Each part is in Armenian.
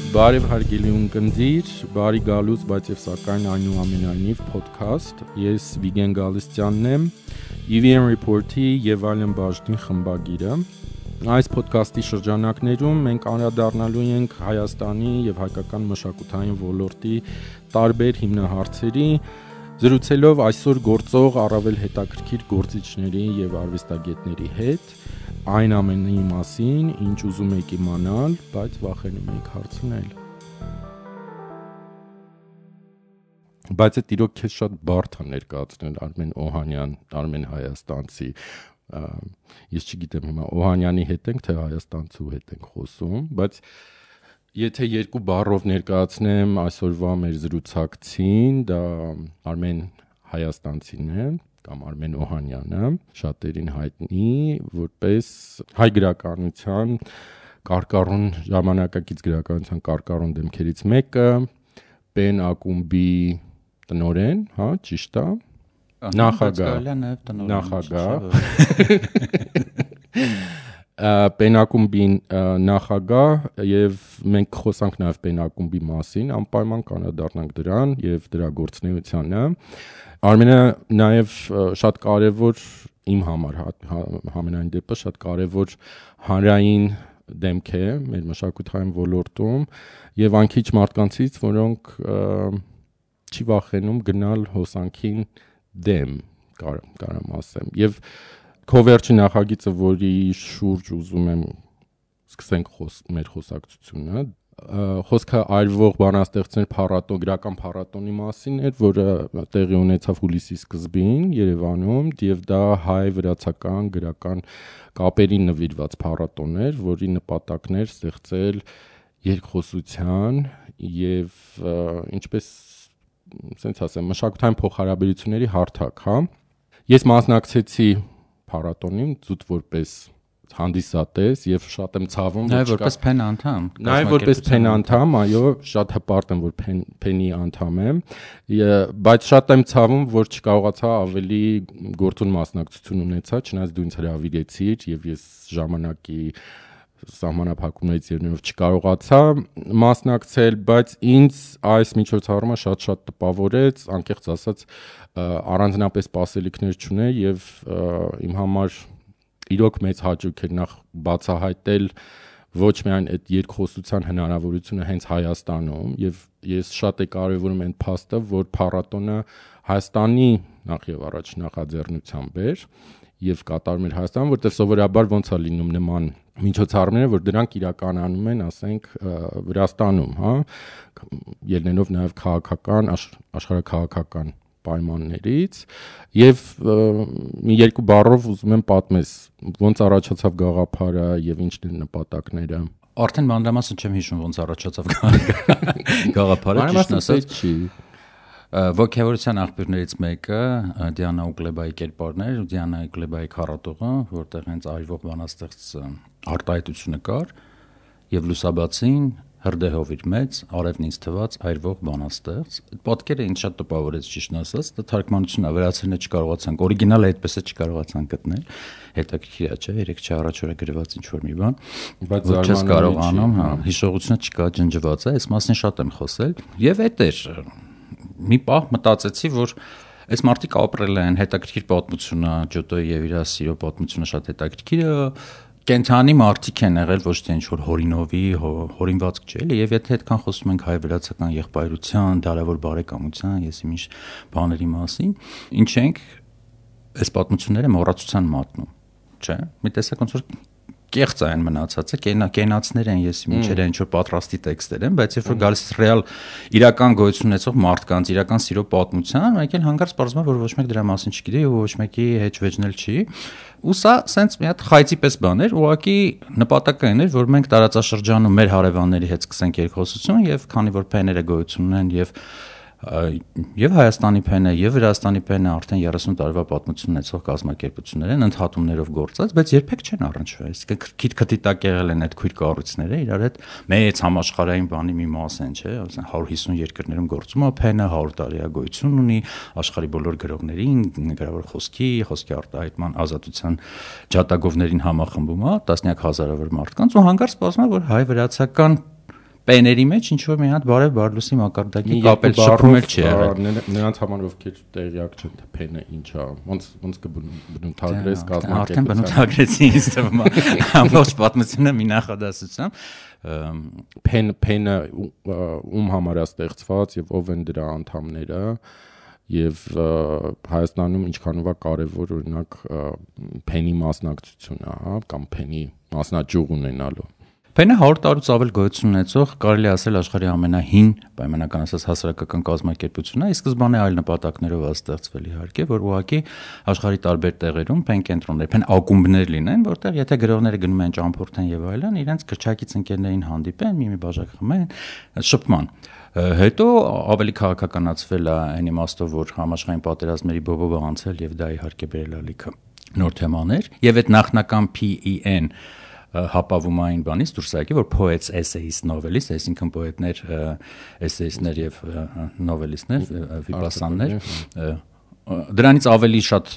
Բարև հարգելի ունկնդիր, բարի գալուց, բայց եւ սակայն այնուամենայնիվ podcast։ Ես Վիգեն Գալստյանն եմ, EVN Report-ի եւ այլն բաժնի խմբագիրը։ Այս podcast-ի շրջանակներում մենք անդրադառնալու ենք Հայաստանի եւ հայկական մշակութային ոլորտի տարբեր հիմնահարցերի, զրուցելով այսօր գործող առավել հետաքրքիր գործիչների եւ արվեստագետների հետ։ Այն ամենի մասին, ինչ ուզում եք իմանալ, բայց վախենում եք հարցնել։ Բայց այդ իրոք քեզ շատ բարդ է ներկայացնել Արմեն Օհանյան, Արմեն Հայաստանցի։ Ես չգիտեմ հիմա Օհանյանի հետ ենք, թե Հայաստանցու հետ ենք խոսում, բայց եթե երկու բառով ներկայացնեմ այսօրվա մեր զրուցակցին, դա Արմեն Հայաստանցին է, կամ Արմեն Օհանյանը, շատերին հայտնի որպես հայ գրականության կարկառուն ժամանակակից գրականության կարկառուն դեմքերից մեկը, Պեն ակումբի տնօրեն, հա, ճիշտ է, նախագահ Պեն ակումբի նախագահ եւ մենք խոսանք նաեւ Պեն ակումբի մասին, անպայման կանադառնանք դրան եւ դրա գործունեությանը։ Արմենը նաև շատ կարևոր իմ համար համենայն դեպս շատ կարևոր հանրային դեմք է մեր մշակութային ոլորտում եւ անկիչ մարդկանցից, որոնք չի վախենում գնալ հոսանքին դեմ, կարամ ասեմ։ Եվ քո վերջի նախագիծը, որի շուրջ ուզում եմ սկսենք մեր խոսակցությունը, խոսքը այրվող բանաստեղծներ փառատոն, գրական փառատոնի մասին էր, որը տեղի ունեցավ հուլիսի սկզբին Երևանում, եւ դա հայ-վրացական գրական կապերին նվիրված փառատոն էր, որի նպատակն էր ստեղծել երկխոսության եւ ինչպես ասենց ասեմ, մշակութային փոխհարաբերությունների հարթակ, հա։ Ես մասնակցեցի փառատոնին զուտ որպես հանդիսատես եւ շատ եմ ցավում, որ որպես Փեն անդամ։ Նաեւ որպես Փեն անդամ, այո, շատ հպարտ եմ, որ Փենի անդամ եմ, բայց շատ եմ ցավում, որ չկարողացա ավելի գործուն մասնակցություն ունեցա, չնայած դու ինձ հրավիրեցիր եւ ես ժամանակի սահմանափակումներից ելնելով չկարողացա մասնակցել, բայց ինձ այս միջոցառումը շատ տպավորեց, անկեղծ ասած, առանձնապես սպասելիքներ չուներ եւ իմ համար իրոք մեծ հաճույք էր նախ բացահայտել ոչ միայն այդ երկխոսության հնարավորությունը հենց Հայաստանում եւ ես շատ կարևորում եմ փաստը, որ փառատոնը Հայաստանի նախ եւ առաջ նախաձեռնությամբ էր եւ կատարում էր Հայաստան, որտեղ սովորաբար ոնց է լինում նման միջոցառումները, որ դրանք իրականանում են, ասենք, Վրաստանում, հա, ելնելով նաեւ քաղաքական, աշխարհաքաղաքական պայմաններից եւ մի երկու բառով ուզում եմ պատմես ոնց առաջացավ գաղափարը եւ ինչն են նպատակները։ Արդեն մանրամասն չեմ հիշում ոնց առաջացավ գաղափարը, ճիշտ ասած չի։ Ոգևորության աղբյուրներից մեկը Դիանա Ուկլեբայի կերպարն էր, Դիանա Ուկլեբայի քառատողը, որտեղ հենց այրվող բանաստեղծ արտահայտությունը կար եւ լուսաբացին հրդեհով իր մեծ, արևն ինձ թված այրվող բանաստեղծ։ Պատկերը ինձ շատ տպավորեց, ճիշտ ասած, դա թարգմանությունն է, վերացրել չկարողացանք, օրիգինալը այդպես է չկարողացանք գտնել։ Հետաքրքիր է, չէ՞, 3 առաջ օրը գրված ինչ-որ մի բան, բայց չես կարողանում, հա, հիշողությունը չկա, ջնջված է, այս մասին շատ եմ խոսել։ Եվ այդ էր մի պահ մտածեցի, որ այս մարդիկ ապրել են, հետաքրքիր պատմությունը, Ջոտոյի եւ իր սիրո պատմությունը շատ հետաքրքիր է, կենթանի մարդիկ են եղել, ոչ թե ինչ-որ հորինովի, հորինվածք չէ, էլի, եւ եթե այդքան խոսում ենք հայ-վրացական եղբայրության, դարավոր բարեկամության, ես իմիշ բաների մասին, ինչ ենք այս պատմությունները մոռացության մատնում, չէ՞։ Մի տեսակ ոնց որ կեղծ այն մնացած է, կենացներ են, ես ինչեր են, ինչ-որ պատրաստի տեքստեր են, բայց երբ որ գալիս ռեալ իրական գոյություն ունեցող մարդկանց, իրական սիրո պատմության, մեկ էլ հանգարց պարզվում է, որ ոչ մեկ դրա մասին չգիտի եւ ոչ մեկի հետ վեճնել չի։ Ու սա սենց մի հատ խայծի պես բան էր, ուղղակի նպատակը այն էր, որ մենք տարածաշրջանում մեր հարևանների հետ սկսենք երկխոսություն եւ քանի որ փեները գոյություն ունեն եւ Հայաստանի փենը եւ Վրաստանի փենը արդեն 30 տարվա պատմություն ունեցող կազմակերպություններ են, ընդհատումներով գործած, բայց երբեք չեն առնչվել, այսինքն քիթ-քթիտակ եղել են այդ քույր կառույցները, իրար հետ մեծ համաշխարհային բանի մի մաս են, չէ, 150 երկրներում գործում է փենը, 100 տարի գոյություն ունի, աշխարհի բոլոր գրողներին, գրավոր խոսքի արտահայտման ազատության ջատագովներին համախմբում է, տասնյակ հազարավոր մարդկանց ու հանգարց սպասում է, որ հայ-վրացական պեների մեջ ինչ որ մի հատ բարև բարլուսի մակարդակի կապել շփում էլ չի եղել։ Նրանց համար ովքեր տեղյակ չեն թե փենը ինչ է, ոնց կբնութագրես կազմակերպության։ Արդեն բնութագրեցի ինձ թվում է ամբողջ պատմությունը մի նախադասությամբ։ Փենը ում համար է ստեղծված եւ ով են դրա անդամները եւ Հայաստանում ինչքանով է կարեւոր օրինակ փենի մասնակցությունը, հա, կամ փենի մասնաճյուղ ունենալու։ Փենը 100 տարուց ավել գոյություն ունեցող կարելի ասել աշխարհի ամենահին պայմանական ասած հասարակական կազմակերպությունն է, ի սկզբանե այլ նպատակներով է ստեղծվել իհարկե, որ ուղղակի աշխարհի տարբեր տեղերում փեն կենտրոններ, փեն ակումբներ լինեն, որտեղ եթե գրողները գնում են ճամփորդեն եւ այլն, իրենց քրչակից ընկերներին հանդիպեն, մի բաժակ խմեն, շփման։ Հետո ավելի քաղաքականացվել է այն իմաստով, որ համաշխարհային պատերազմների բովովը անցել եւ դա իհարկե բերել է լիքը նոր թեմաներ եւ այդ նախնական PEN հապավումային բանից դուրս եկի, որ poets, essayists, novelists, այսինքն պոետներ, էսեյիստներ եւ նովելիստներ, վիպասաններ, դրանից ավելի շատ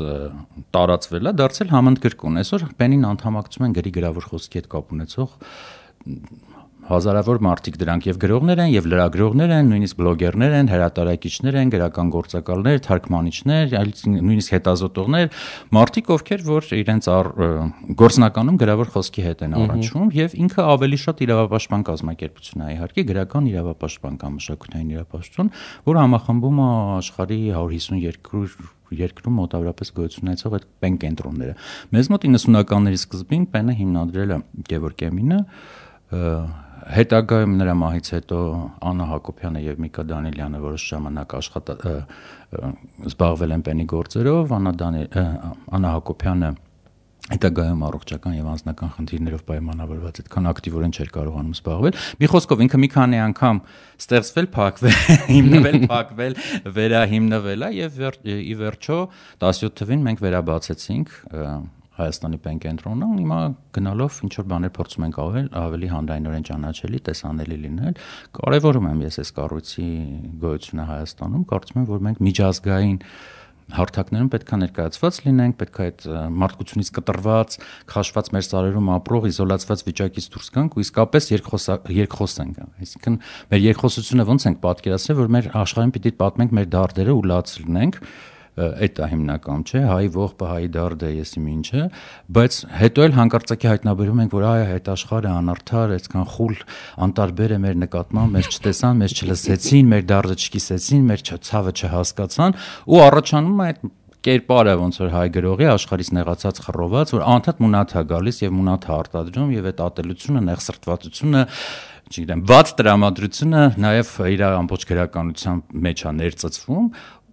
տարածվել է, դարձել համընդգրկուն։ Այսօր Պենին անդամակցում են գրի գրավոր խոսքի հետ կապ ունեցող հազարավոր մարդիկ, դրանք եւ գրողներ են, եւ լրագրողներ են, նույնիսկ բլոգերներ են, հրատարակիչներ են, գրական գործակալներ, թարգմանիչներ, նույնիսկ հետազոտողներ, մարդիկ, ովքեր որ իրենց գործնականում գրավոր խոսքի հետ են առնչվում, եւ ինքը ավելի շատ իրավապաշտպան կազմակերպություն է, իհարկե գրական իրավապաշտպան կամ մշակութային իրավապաշտպան, որ համախմբում է աշխարհի 152 երկրում մոտավորապես գոյություն ունեցող այդ պեն կենտրոնները։ Մեզ մոտ 90-ականների սկզբին պենը հիմնադրել է Գևորգ Էմինը, հետագայում նրա մահից հետո Աննա Հակոբյանը եւ Միկա Դանիելյանը որոշ ժամանակ զբաղվել են պենի գործերով, Աննա Հակոբյանը հետագայում առողջական եւ անձնական խնդիրներով պայմանավորված այդքան ակտիվորեն չէր կարողանում զբաղվել։ Մի խոսքով ինքը մի քանի անգամ ստեղծվել, փակվել, հիմնվել, փակվել, վերահիմնվել է եւ ի վերջո 17 թվին մենք վերաբացեցինք Հայաստանի պեն կենտրոնը, հիմա գնալով ինչ որ բաներ փորձում ենք ավելի հանրայնորեն ճանաչելի, տեսանելի լինել։ Կարևորում եմ ես այս կառույցի գոյությունը Հայաստանում, կարծում եմ, որ մենք միջազգային հարթակներում պետք է ներկայացված լինենք, պետք է այդ մարդկությունից կտրված, քաշված մեր սարերում ապրող, իզոլացված վիճակից դուրս գանք ու իսկապես երկխոսենք։ Այսինքն մեր երկխոսությունը ոնց ենք պատկերացրել, որ մեր աշխարհին պիտի պատմենք մեր դարդերը ու լաց լինենք, այդ է հիմնական, չէ, հայի ողբը, հայի դարդը, եսիմ ինչը, բայց հետո էլ հանկարծակի հայտնաբերում ենք, որ այդ աշխարհը անարդար, այսքան խուլ, անտարբեր է մեր նկատմամբ, մեզ չտեսան, մեզ չլսեցին, մեր դարդը չկիսեցին, մեր ցավը չհասկացան ու առաջանում է այդ կերպարը ոնց որ հայ գրողի աշխարհից նեղացած խռոված, որ անդադ մունաթ է գալիս եւ մունաթ է արտադրում եւ այդ ատելությունը, նեղսրտվածությունը, չգիտեմ, վատ տրամադրությունը նաեւ իր ամբողջ գրականության մեջ է ներծծվում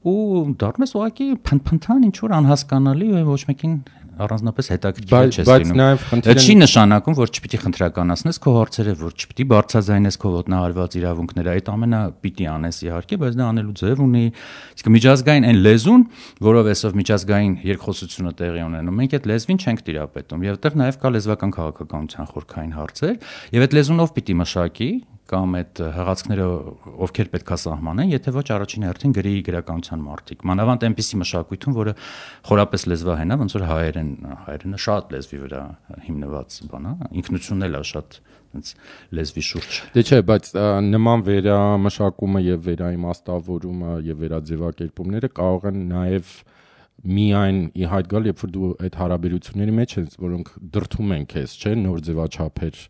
ու դառնում ես ուղղակի փնփնթան ինչ որ անհասկանալի ու ոչ մեկին առանձնապես հետաքրքիր չես լինում։ Այդ չի նշանակում, որ չպիտի խնդրականացնես քո հարցերը, որ չպիտի բարձրաձայնես քո ոտնահարված իրավունքները, այդ ամենը պիտի անես իհարկե, բայց դա անելու ձև ունի, իսկ միջազգային այն լեզուն, որով այսով միջազգային երկխոսությունը տեղի ունենում, մենք այդ լեզվին չենք տիրապետում, եւ այդտեղ նաեւ կա լեզվական քաղաքականության խորքային հարցեր, եւ այդ լեզունով պիտի մշակի կամ այդ հղացքները ովքեր պետքա սահմանեն, եթե ոչ առաջին հերթին գրի գրականության մարդիկ։ Մանավանդ այնպիսի մշակույթում, որը խորապես լեզվահեն է, ոնց որ հայերենը շատ լեզվի վրա հիմնված բան է, ինքնությունն էլ է շատ այնց լեզվի շուրջ։ Դե չէ, բայց նման վերամշակումը եւ վերաիմաստավորումը եւ վերաձևակերպումները կարող են նաեւ միայն ի հայտ գալ, երբ որ դու այդ հարաբերությունների մեջ ես, որոնք դրթում են քեզ, չէ, նոր ձևաչափեր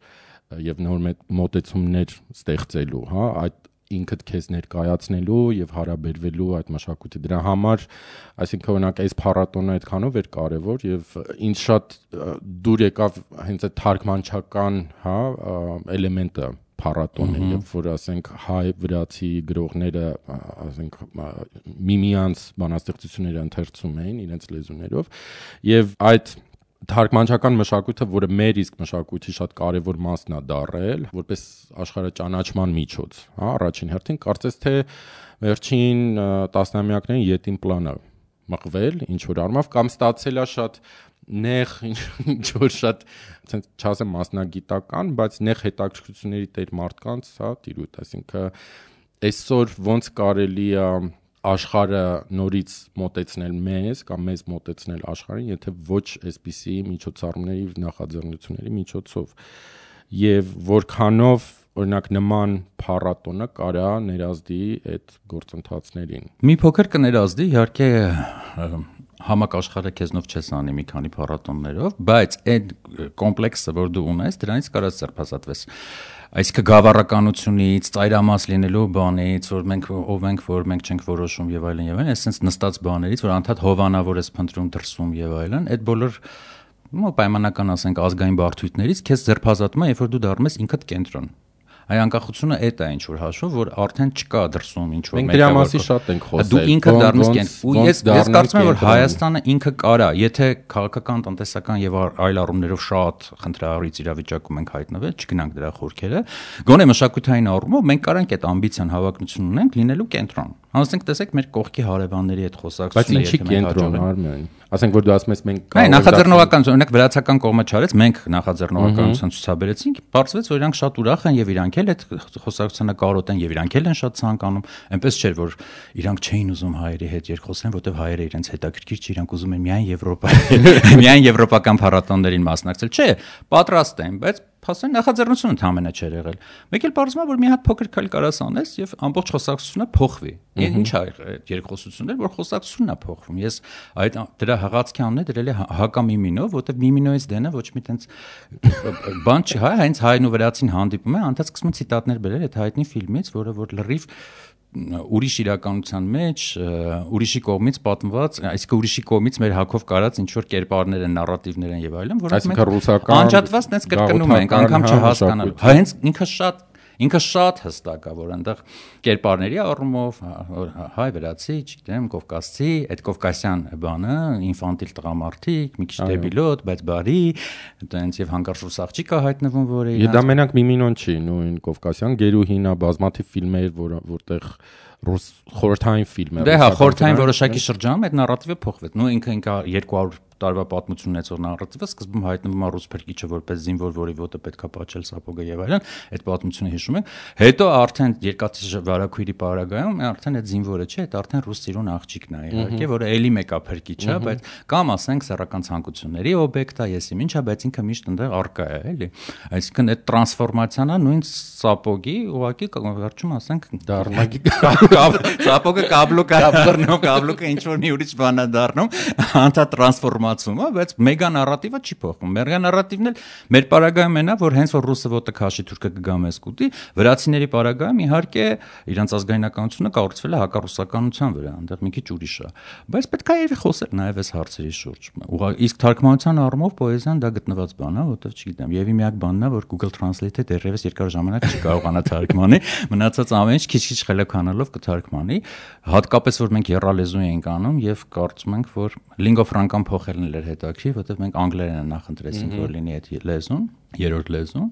եւ նոր մոտեցումներ ստեղծելու, հա, այդ ինքդ քեզ ներկայացնելու եւ հարաբերվելու այդ մշակույթի դրա համար, այսինքն օրինակ այս փառատոնը այդքանով էր կարեւոր եւ ինձ շատ դուր եկավ հենց այդ թարգմանչական, հա, էլեմենտը փառատոնը, երբ որ ասենք հայ վրացի գրողները, ասենք միմյանց բանաստեղծությունները ընթերցում էին իրենց լեզուներով եւ այդ թարգմանչական մշակույթը, որը մեր իսկ մշակույթի շատ կարևոր մասն է դառել, որպես աշխարհաճանաչման միջոց, հա, առաջին հերթին կարծես թե վերջին տասնամյակներին յետին պլանը մղվել, ինչ որ առումով կամ ստացել է շատ նեղ, ինչ որ շատ, ասենք, չասեմ մասնագիտական, բայց նեղ հետաքրքրությունների տեր մարդկանց, հա, տիրույթ, այսինքն այսօր ոնց կարելի է աշխարհը նորից մոտեցնել մեզ կամ մեզ մոտեցնել աշխարհին, եթե ոչ այսպիսի միջոցառումների նախաձեռնությունների միջոցով եւ որքանով օրինակ նման փառատոնը կարա ներազդի այդ գործընթացներին։ Մի փոքր կներազդի, իհարկե համակաշխարը քեզնով չես անի մի քանի փառատոններով, բայց այդ կոմպլեքսը, որ դու ունես, դրանից կարաս ձերբազատվես։ Այսինքն գավառականությունից, ծայրամաս լինելու բանից, որ մենք չենք որոշում եւ այլն, այսպես նստած բաներից, որ անդադ հովանավոր ես փնտրում դրսում եւ այլն, այդ բոլոր պայմանական ասենք ազգային բարդույթներից քեզ ձերբազատում է, երբ որ դու դառնում ես ինքդ կենտրոն։ Այ անկախությունը այդ է ինչ որ հաշվով, որ արդեն չկա դրսում ինչ որ մենք դրա մասին շատ ենք խոսել։ Դու ինքը դառնես կենտրոն։ Ու ես կարծում եմ, որ Հայաստանը ինքը կարա, եթե քաղաքական, տնտեսական եւ այլ առումներով շատ խնդրահարույց իրավիճակում ենք հայտնվել, չգնանք դրա խորքերը, գոնե մշակութային առումով մենք կարանք այդ ամբիցիան, հավակնություն ունենք լինելու կենտրոն։ Հասնենք տեսեք մեր կողքի հարևանների հետ խոսակցությունը, եթե մենք կենտրոն ասենք որ դու ասում ես մենք նախաձեռնողական, օրինակ վրացական կողմը չարեց, մենք նախաձեռնողականություն ցուցաբերեցինք, բարձվեց, որ իրանք շատ ուրախ են եւ իրանք էլ այդ խոսակցությունը կարոտեն եւ իրանք էլ են շատ ցանկանում, այնպես չէր որ իրանք չէին ուզում հայերի հետ երկխոսեն, որտեվ հայերը իրենց հետաքրքիր չի, իրանք ուզում են միայն եվրոպական փառատոններին մասնակցել, չէ, պատրաստ են, բայց փաստորեն նախաձեռնությունը ընդհանրապես չէր եղել։ Մեկ էլ բարձրացնում է, որ մի հատ փոքր քայլ կարաս անես եւ ամբողջ խոսակցությունը փոխվի։ Ինչ է երկխոսություններ, որ խոսակցությունն է փոխվում։ Ես այդ դրա հղացքի անունը դրել եմ հակամիմինով, որտեվ միմինոից դենը ոչ մի տենց բան չի, հենց հայն ու վրացին հանդիպում է, անդադ սկսում են ցիտատներ բերել այդ հայտնի ֆիլմից, որը որ լրիվ ուրիշ իրականության մեջ ուրիշի կողմից պատմված, այսինքն ուրիշի կողմից մեր հակով կարած ինչ որ կերպարներ են, նարատիվներ են եւ այլն, որոնք մենք անջատված տես կրկնում ենք, անգամ չհասկանալու։ Հենց ինքը շատ հստակ է, որ այնտեղ կերպարների առումով հայ, վրացի, չգիտեմ, կովկասցի, այդ կովկասյան բանը, ինֆանտիլ տղամարդիկ, մի քիչ դեբիլոտ, բայց բարի, այնց եւ հանկարծ ռուս աղջիկ է հայտնվում, որը իրան դա մենակ միմինոն չի, նույն կովկասյան գերուհին է, բազմաթիվ ֆիլմեր, որտեղ ռուս խորհրդային ֆիլմ է։ Դե հա, խորհրդային որոշակի շրջանում այդ նարատիվը փոխվեց։ Նույն ինքը 200 տարվա պատմություն ունեցող նարատիվը սկզբում հայտնվում է ռուս փրկիչը որպես զինվոր, որի ոտը պետքա պատճել սապոգը եւ այլն, այդ պատմությունը հիշում ենք։ Հետո արդեն երկաթի վարակույրի պարագայում արդեն այդ զինվորը չէ, այդ արդեն ռուս ծիրուն աղջիկն է, իհարկե, որը էլի մեկա փրկիչ է, բայց կամ ասենք սեռական ցանկությունների օբյեկտ է, եսի ինչա, բայց ինքը միշտ այնտեղ արկա է, էլի։ Այսինքն այդ տրանսֆորմացիան է նույն սապոգի, ուղղակի վերջում ասենք դառնագի սապոգը կաբլոկը ինչ որ մի ուրիշ բան է դառնում, անտա տրանսֆորմացումը, բայց մեգա նարատիվը չի փոխվում։ Մեգա նարատիվն էլ մեր պարագայում այնա, որ հենց որ ռուսը ոտը քաշի, թուրքը կգա մեզ կուտի, վրացիների պարագայում իհարկե իրանց ազգայնականությունը կառուցվել է հակառուսականության վրա, այնտեղ մի քիչ ուրիշ է։ Բայց պետք է խոսել նաև այս հարցերի շուրջ։ Իսկ թարգմանության առումով պոեզիան դա գտնված բան է, որովհետև չգիտեմ, եւ մի հատ բանն է, որ Google Translate-ը դեռևս երկար ժամանակ չի կարողանա թարգմանի, մնացած ամեն ինչ քիչ-քիչ խելոքանալով կթարգմանի, հատկապես որ մենք եռալեզու ենք անում եւ կարծում ենք, որ lingua franca-ն փոխելն էր հետաքրքիր, որովհետեւ մենք անգլերենը նախընտրեցինք, որ լինի այդ լեզուն, երրորդ լեզուն։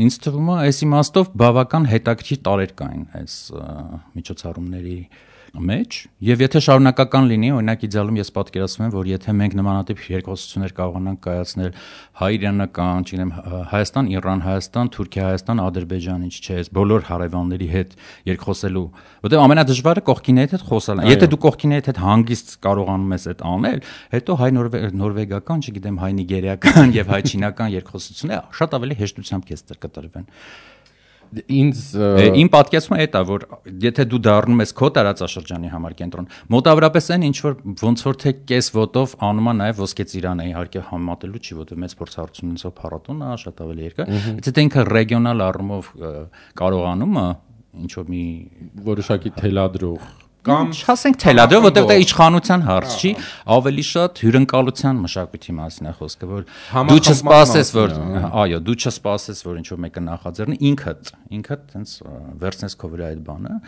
Ինձ թվում է, այս իմաստով բավական հետաքրքիր տարեր կային այս միջոցառումների մեջ, եւ եթե շարունակական լինի, օրինակ իդեալում ես պատկերացնում եմ, որ եթե մենք նմանատիպ երկխոսություններ կարողանանք կայացնել հայ-իրանական, չգիտեմ, Հայաստան, Իրան, Հայաստան, Թուրքիա, Հայաստան, Ադրբեջան, ինչ չէ, բոլոր հարևանների հետ երկխոսելու, որտեղ ամենադժվարը կողքինի հետ խոսալն է։ Եթե դու կողքինի հետ հանգիստ կարողանում ես այդ անել, հետո հայ-նորվեգական, չգիտեմ, հայ-նիգերիական եւ հայ-չինական երկխոսությունները շատ ավելի հեշտությամբ քեզ կտրվեն։ Իմ պատկերացումը այդ է, որ եթե դու դառնում ես քո տարածաշրջանի համար կենտրոն, մոտավորապես այն ինչ որ ոնց որ թե կես ոտով անում է նաև ոսկե ծիրանը, իհարկե համատելու չի, որտեղ մեծ փորձառություն ունեցող փառատոնն է, շատ ավելի երկար, բայց եթե ինքը ռեգիոնալ առումով կարողանում է ինչ որ մի որոշակի թելադրող կամ ասենք թելադրող, որտեղ դա իշխանության հարց չի, ավելի շատ հյուրընկալության մշակույթի մասին է խոսքը, որ դու չսպասես, որ այո, դու չսպասես, որ ինչ որ մեկը նախաձեռնի, ինքդ տենց վերցնես քո վրա այդ բանը։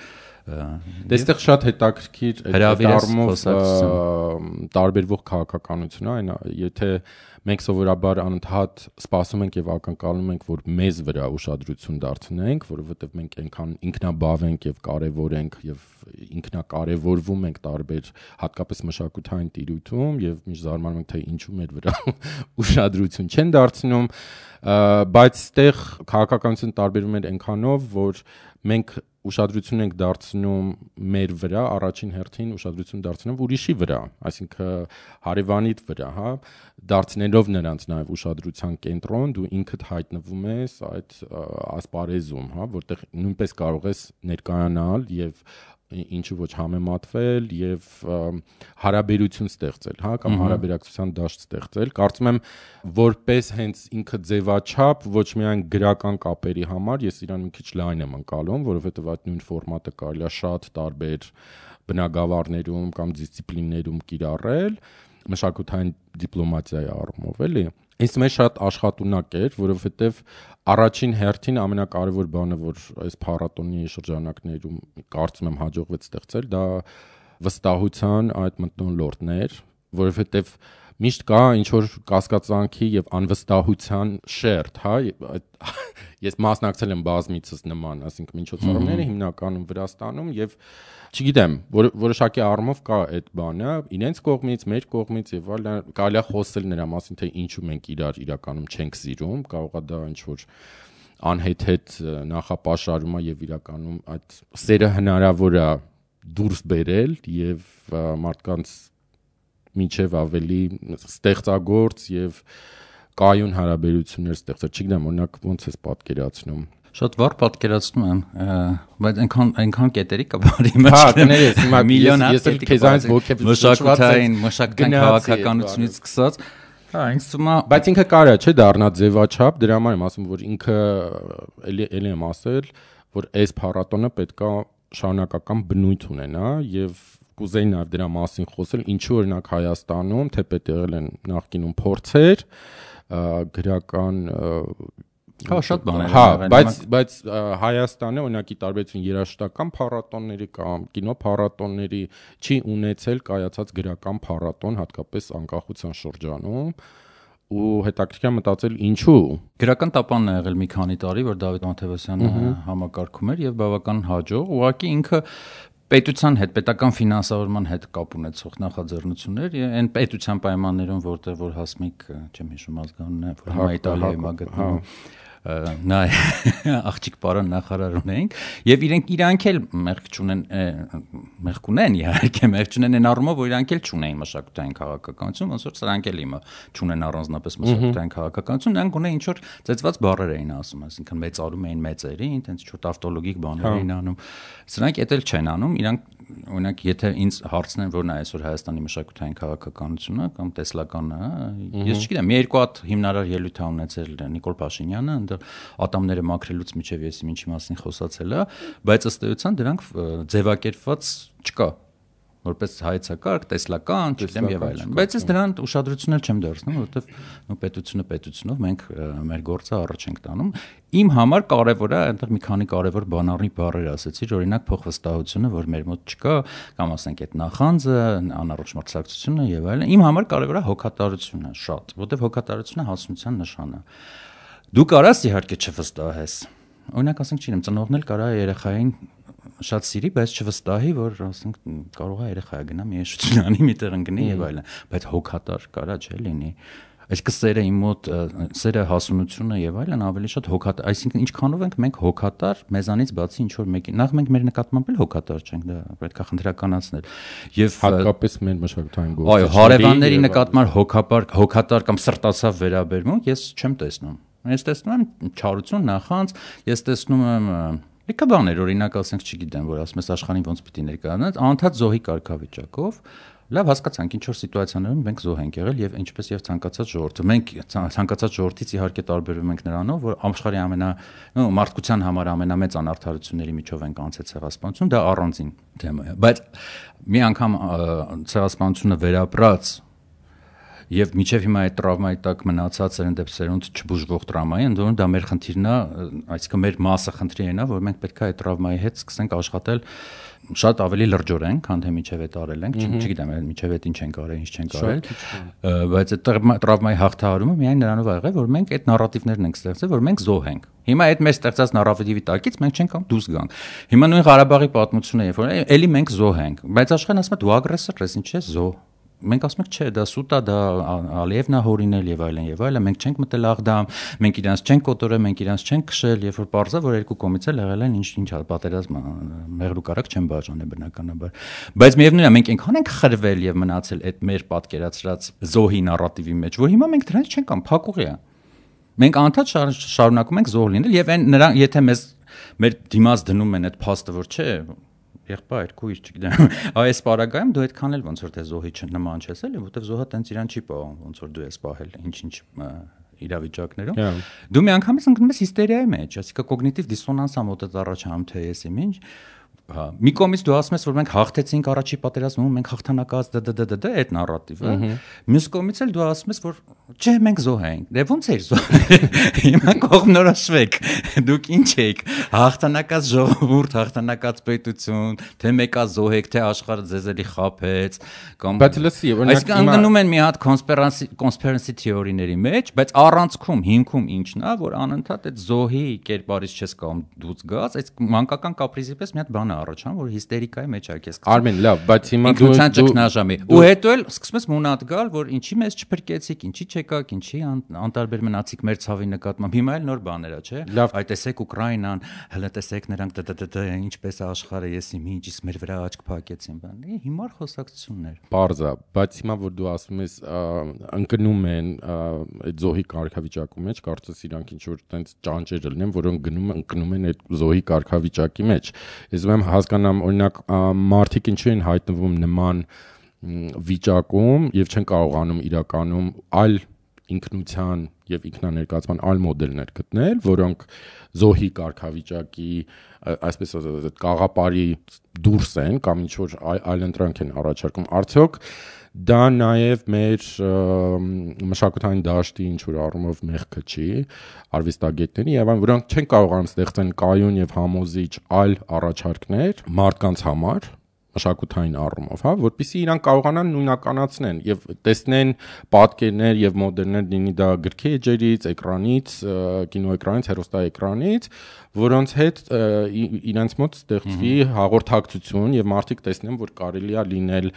Դեստեղ շատ հետաքրքիր այդ առումով տարբերվող քաղաքականություն է, այն եթե մենք սովորաբար անընդհատ սպասում ենք եւ ակնկալում ենք, որ մեզ վրա ուշադրություն դարձնենք, որովհետեւ մենք այնքան ինքնաբավ ենք եւ կարեւոր ենք եւ ինքնակարևորվում ենք տարբեր հատկապես մշակութային տիրույթում եւ միշտ զարմանում ենք թե ինչու մեր վրա ուշադրություն չեն դարձնում, բայց այդտեղ քաղաքականությունը տարբերվում է այնքանով, որ մենք ուշադրություն ենք դարձնում մեր վրա, առաջին հերթին ուշադրություն դարձնում ուրիշի վրա, այսինքն հարևանիդ վրա, հա, դարձնել դնելով նրանց նաև ուշադրության կենտրոն, դու ինքդ հայտնվում ես այդ ասպարեզում, հա, որտեղ նույնպես կարող ես ներկայանալ եւ ինչու ոչ համեմատվել եւ հարաբերություն ստեղծել, հա, կամ հարաբերակցության դաշտ ստեղծել։ Կարծում եմ, որպես հենց ինքը ձևաչափ ոչ միայն գրական կապերի համար, ես իրան մի քիչ լայն եմ ընկալում, որովհետեւ այդ նույն ֆորմատը կարելի է շատ տարբեր բնագավառներում կամ դիսցիպլիններում կիրառել, մշակութային դիպլոմատիայի առումով, էլի։ Ինձ մեջ շատ աշխատունակ էր, որովհետև առաջին հերթին ամենակարևոր բանը, որ այս փառատոնի շրջանակներում կարծում եմ հաջողվեց ստեղծել, դա վստահության այդ մթնոլորտն էր, որովհետև միշտ կա ինչ որ կասկածանքի եւ անվստահության շերտ, հա, ես մասնակցել եմ բազմիցս նման, ասինքն միջոցառումները հիմնականում Վրաստանում եւ չգիտեմ, որոշակի առումով կա այդ բանը, իրենց կողմից, մեր կողմից եւ այլն, կարելի է խոսել նրա մասին, թե ինչու մենք իրար իրականում չենք սիրում, կարող է դա ինչ որ անհեթեթ նախապաշարում է եւ իրականում այդ սերը հնարավոր է դուրս բերել եւ մարդկանց միջև ավելի ստեղծագործ եւ կայուն հարաբերություններ ստեղծել, չգիտեմ, օրինակ ոնց ես պատկերացնում։ Շատ վառ պատկերացնում եմ, բայց այնքան կետերի կա բարի մեջ։ Հա, կներես, հիմա միլիոն ես քեզանից մշակութային քաղաքականությունից սկսած, հա, ինձ թվում է, բայց ինքը կարա չէ դառնա ձևաչափ, դրա համար եմ ասում, որ ինքը էլի եմ ասել, որ այս փառատոնը պետքա շարունակական բնույթ ունենա եւ կուզեի նաև դրա մասին խոսել, ինչու օրինակ Հայաստանում թեպետ եղել են նախկինում փորձեր, գրական հա շատ բաներ են, բայց Հայաստանը օրինակի տարբերություն երաժշտական փառատոնների կամ կինո փառատոնների չի ունեցել կայացած գրական փառատոն, հատկապես անկախության շրջանում, ու հետաքրքիր մտածել ինչու։ Գրական տապանն է եղել մի քանի տարի, որ Դավիթ Մաթևոսյանը համակարգում էր եւ բավական հաջող, ուղղակի ինքը պետության հետ, պետական ֆինանսավորման հետ կապ ունեցող նախաձեռնություններ, այն պետության պայմաններում, որտեղ որ Հասմիկ, չեմ հիշում ազգանունը, որ հիմա Իտալիայում է գտնվում, նա աղջիկ պարոն նախարար ունենք, եւ իրանք էլ մեղք ունեն իհարկե, մեղք չունեն այն առումով, որ իրանք էլ չունեն մշակութային քաղաքականություն, ոնց որ սրանք էլ իմը չունեն առանձնապես մշակութային քաղաքականություն, նրանք ունեն ինչ որ ծեծված բառեր էին ասում, այսինքն մեծարում էին մեծերին, տենց ինչ որ տավտոլոգիկ բաներ էին անում, սրանք էդ էլ չեն անում, իրանք օրինակ եթե ինձ հարցնեն որն է այսօր Հայաստանի մշակութային քաղաքականությունը կամ տեսլականը, ես չգիտեմ, մի երկու հատ հիմնարար ելույթ ա ունեցել Նիկոլ Փաշինյանը, այնտեղ ատամները մաքրելուց միջև ես ինչի մասին խոսացել է, բայց ըստ էության դրանք ձևակերպված չկա որպես հայեցակարգ, տեսլական, չգիտեմ եւ այլն։ Բայց ես դրան ուշադրություն էլ չեմ դարձնում, որովհետեւ պետությունը պետությունով մենք մեր գործը առաջ ենք տանում։ Իմ համար կարևոր է այնտեղ մի քանի կարևոր բանառի բառեր ասեցի, օրինակ փոխվստահությունը, որ մեր մոտ չկա, կամ ասենք այդ նախանձը, անառողջ մրցակցությունը եւ այլն։ Իմ համար կարևոր է հոգատարությունը շատ, որովհետեւ հոգատարությունը հասունության նշան է։ Դու կարաս իհարկե չվստահես։ Օրինակ ասենք չինեմ, ծնողն էլ կարա երեխային շատ սիրի, բայց չվստահի, որ ասենք կարող է երեխա գնա մի եշություն անի, միտեղ ընկնի եւ այլն, բայց հոգատար կարա չէ լինի։ Այսինքն սերը իմ մոտ, սերը հասունությունը եւ այլն ավելի շատ հոգատար, այսինքն ինչքանով ենք մենք հոգատար, մեզանից բացի ինչ որ մեկին, նախ մենք մեր նկատմամբ էլ հոգատար չենք, դա պետք է խնդրականացնել։ Եվ հատկապես մեր մշակութային գործը։ Այո, հարևանների նկատմամբ հոգատար կամ սրտացավ վերաբերմունք ես չեմ տեսնում։ Ես տեսնում եմ չարություն, նախանձ, ես տեսնում եմ լիքը բաներ, օրինակ ասենք, չգիտեմ, որ ասում ես աշխարհին ոնց պիտի ներկայանաց, անդադ զոհի կարգավիճակով, լավ հասկացանք, ինչ որ սիտուացիաներում մենք զոհ ենք եղել եւ ինչպես եւ ցանկացած ժողովուրդը։ Մենք ցանկացած ժողովրդից իհարկե տարբերվում ենք նրանով, որ աշխարհի մարդկության համար ամենամեծ անարդարությունների միջով ենք անցել ցեղասպանություն, դա առանձին թեմա է։ Բայց մի անգամ ցեղասպանությունը վերապրած եւ միջև հիմա այդ տրավմայի տակ մնացած սերնդեպսերոնդ չբուժվող տրավմայի, ընդհանուր դա մեր խնդիրն է, այսինքն մեր մասը խնդրի է, որ մենք պետք է այդ տրավմայի հետ սկսենք աշխատել շատ ավելի լրջորեն, քան թե միջև այդ արել ենք, չգիտեմ, միջև այդ ինչ ենք արել, ինչ չենք արել, բայց այդ տրավմայի հաղթահարումը միայն նրանով ա եղել, որ մենք այդ նարատիվներն ենք ստեղծել, որ մենք զոհ ենք։ Հիմա այդ մեր ստեղծած նարատիվի տակից մենք չենք կամ դուրս գանք։ Հիմա նույն Ղարաբաղի պատմությունը երբ որ էլի մենք զոհ ենք, բայց աշխարհն ասում է դու ագրեսոր ես, ինչ ես զոհ։ մենք ասում ենք, չէ, դա սուտ է, դա Ալիևն է հորինել եւ այլն եւ այլն, մենք չենք մտել Աղդամ, մենք իրանց չենք կոտորել, մենք իրանց չենք քշել, երբ որ պարզա որ երկու կողմից էլ եղել են ինչ պատերազմ մեղրու կարակ չեն բաժանել բնականաբար։ Բայց միևնույնն է, մենք այնքան ենք խրվել եւ մնացել այդ մեր պատկերացրած զոհի նարատիվի մեջ, որ հիմա մենք դրանից չենք ամ փակուղի է։ Մենք անդադ շարունակում ենք զոհ լինել եւ այն նրանք եթե մեզ մեր դիմաց դնում են այդ փաստը, որ չէ, եղբայր, քույր, չգիտեմ, այս պարագայում դու այդքան էլ ոնց որ թե զոհի նման չես էլի, որտեվ զոհը տենց իրան չի պահում, ոնց որ դու ես պահել, ինչ իրավիճակներում։ Դու մի անգամից ընկնում ես հիստերիայի մեջ, այսինքն կոգնիտիվ դիսոնանս ա մոտդ առաջանում թե ես իմ ինչ։ Մի կողմից դու ասում ես, որ մենք հաղթեցինք առաջի պատերազմում, մենք հաղթանակած այդ նարատիվը։ Մյուս կողմից էլ դու ասում ես, որ չէ, մենք զոհ ենք։ Դե ո՞նց էր զոհ։ Հիմա կողմնորոշվեք։ Դուք ինչ եք, հաղթանակած ժողովուրդ, հաղթանակած պետություն, թե մեկա զոհ եք, թե աշխարհը ձեզ էլի խաբեց, կամ Բայց լսի, օրինակ ընկնում են մի հատ conspiracy theory-ների մեջ, բայց առանցքում հիմքում ինչն է, որ անընդհատ այդ զոհի կերպարից չես կարող դուց գաս, այդ մանկական կապրիզի պես մի հատ բան առաջան, որ հիստերիկայի մեջ ա քեզ։ Արմեն, լավ, բայց հիմա դու հետո էլ սկսում ես մունատ գալ, որ ինչի մեզ չփրկեցիք, ինչի չեկաք, ինչի անտարբեր մնացիք մեր ցավի նկատմամբ։ Հիմա էլ նոր բաներ ա, չէ։ Այ տեսեք Ուկրաինան, հələ տեսեք նրանք ինչպես է աշխարհը, ես իմ ինչ իսկ մեր վրա աչք փակեցին, բան։ Հիմար խոսակցություններ։ Պարզա, բայց հիմա որ դու ասում ես ընկնում են այդ զոհի կարգավիճակի մեջ, կարծես իրանք ինչ որ տենց ճանճեր լինեն, որոնք ընկնում են այդ զոհի կարգավիճակի մեջ։ Ես ուրեմն հասկանամ, օրինակ մարդիկ ինչու են հայտնվում նման վիճակում եւ չեն կարողանում իրականում այլ ինքնության եւ ինքնաներկայացման այլ մոդելներ գտնել, որոնք զոհի կարգավիճակի այսպես ասած կաղապարի դուրս են կամ ինչ որ այլ ընտրանք են առաջարկում։ Արդյոք դա նաև մեր մշակութային դաշտի ինչ որ առումով մեղքը չի արվեստագետների եւ այն որոնք չեն կարողանում ստեղծեն կայուն եւ համոզիչ այլ առաջարկներ մարդկանց համար մշակութային առումով, հա, որպեսզի իրանք կարողանան նույնականացնեն եւ տեսնեն պատկերներ եւ մոդելներ լինի դա գրքի էջերից, էկրանից, կինոէկրանից, հեռուստաէկրանից, որոնց հետ իրանց մոտ ստեղծվի հաղորդակցություն եւ մարդիկ տեսնեն, որ կարելի է լինել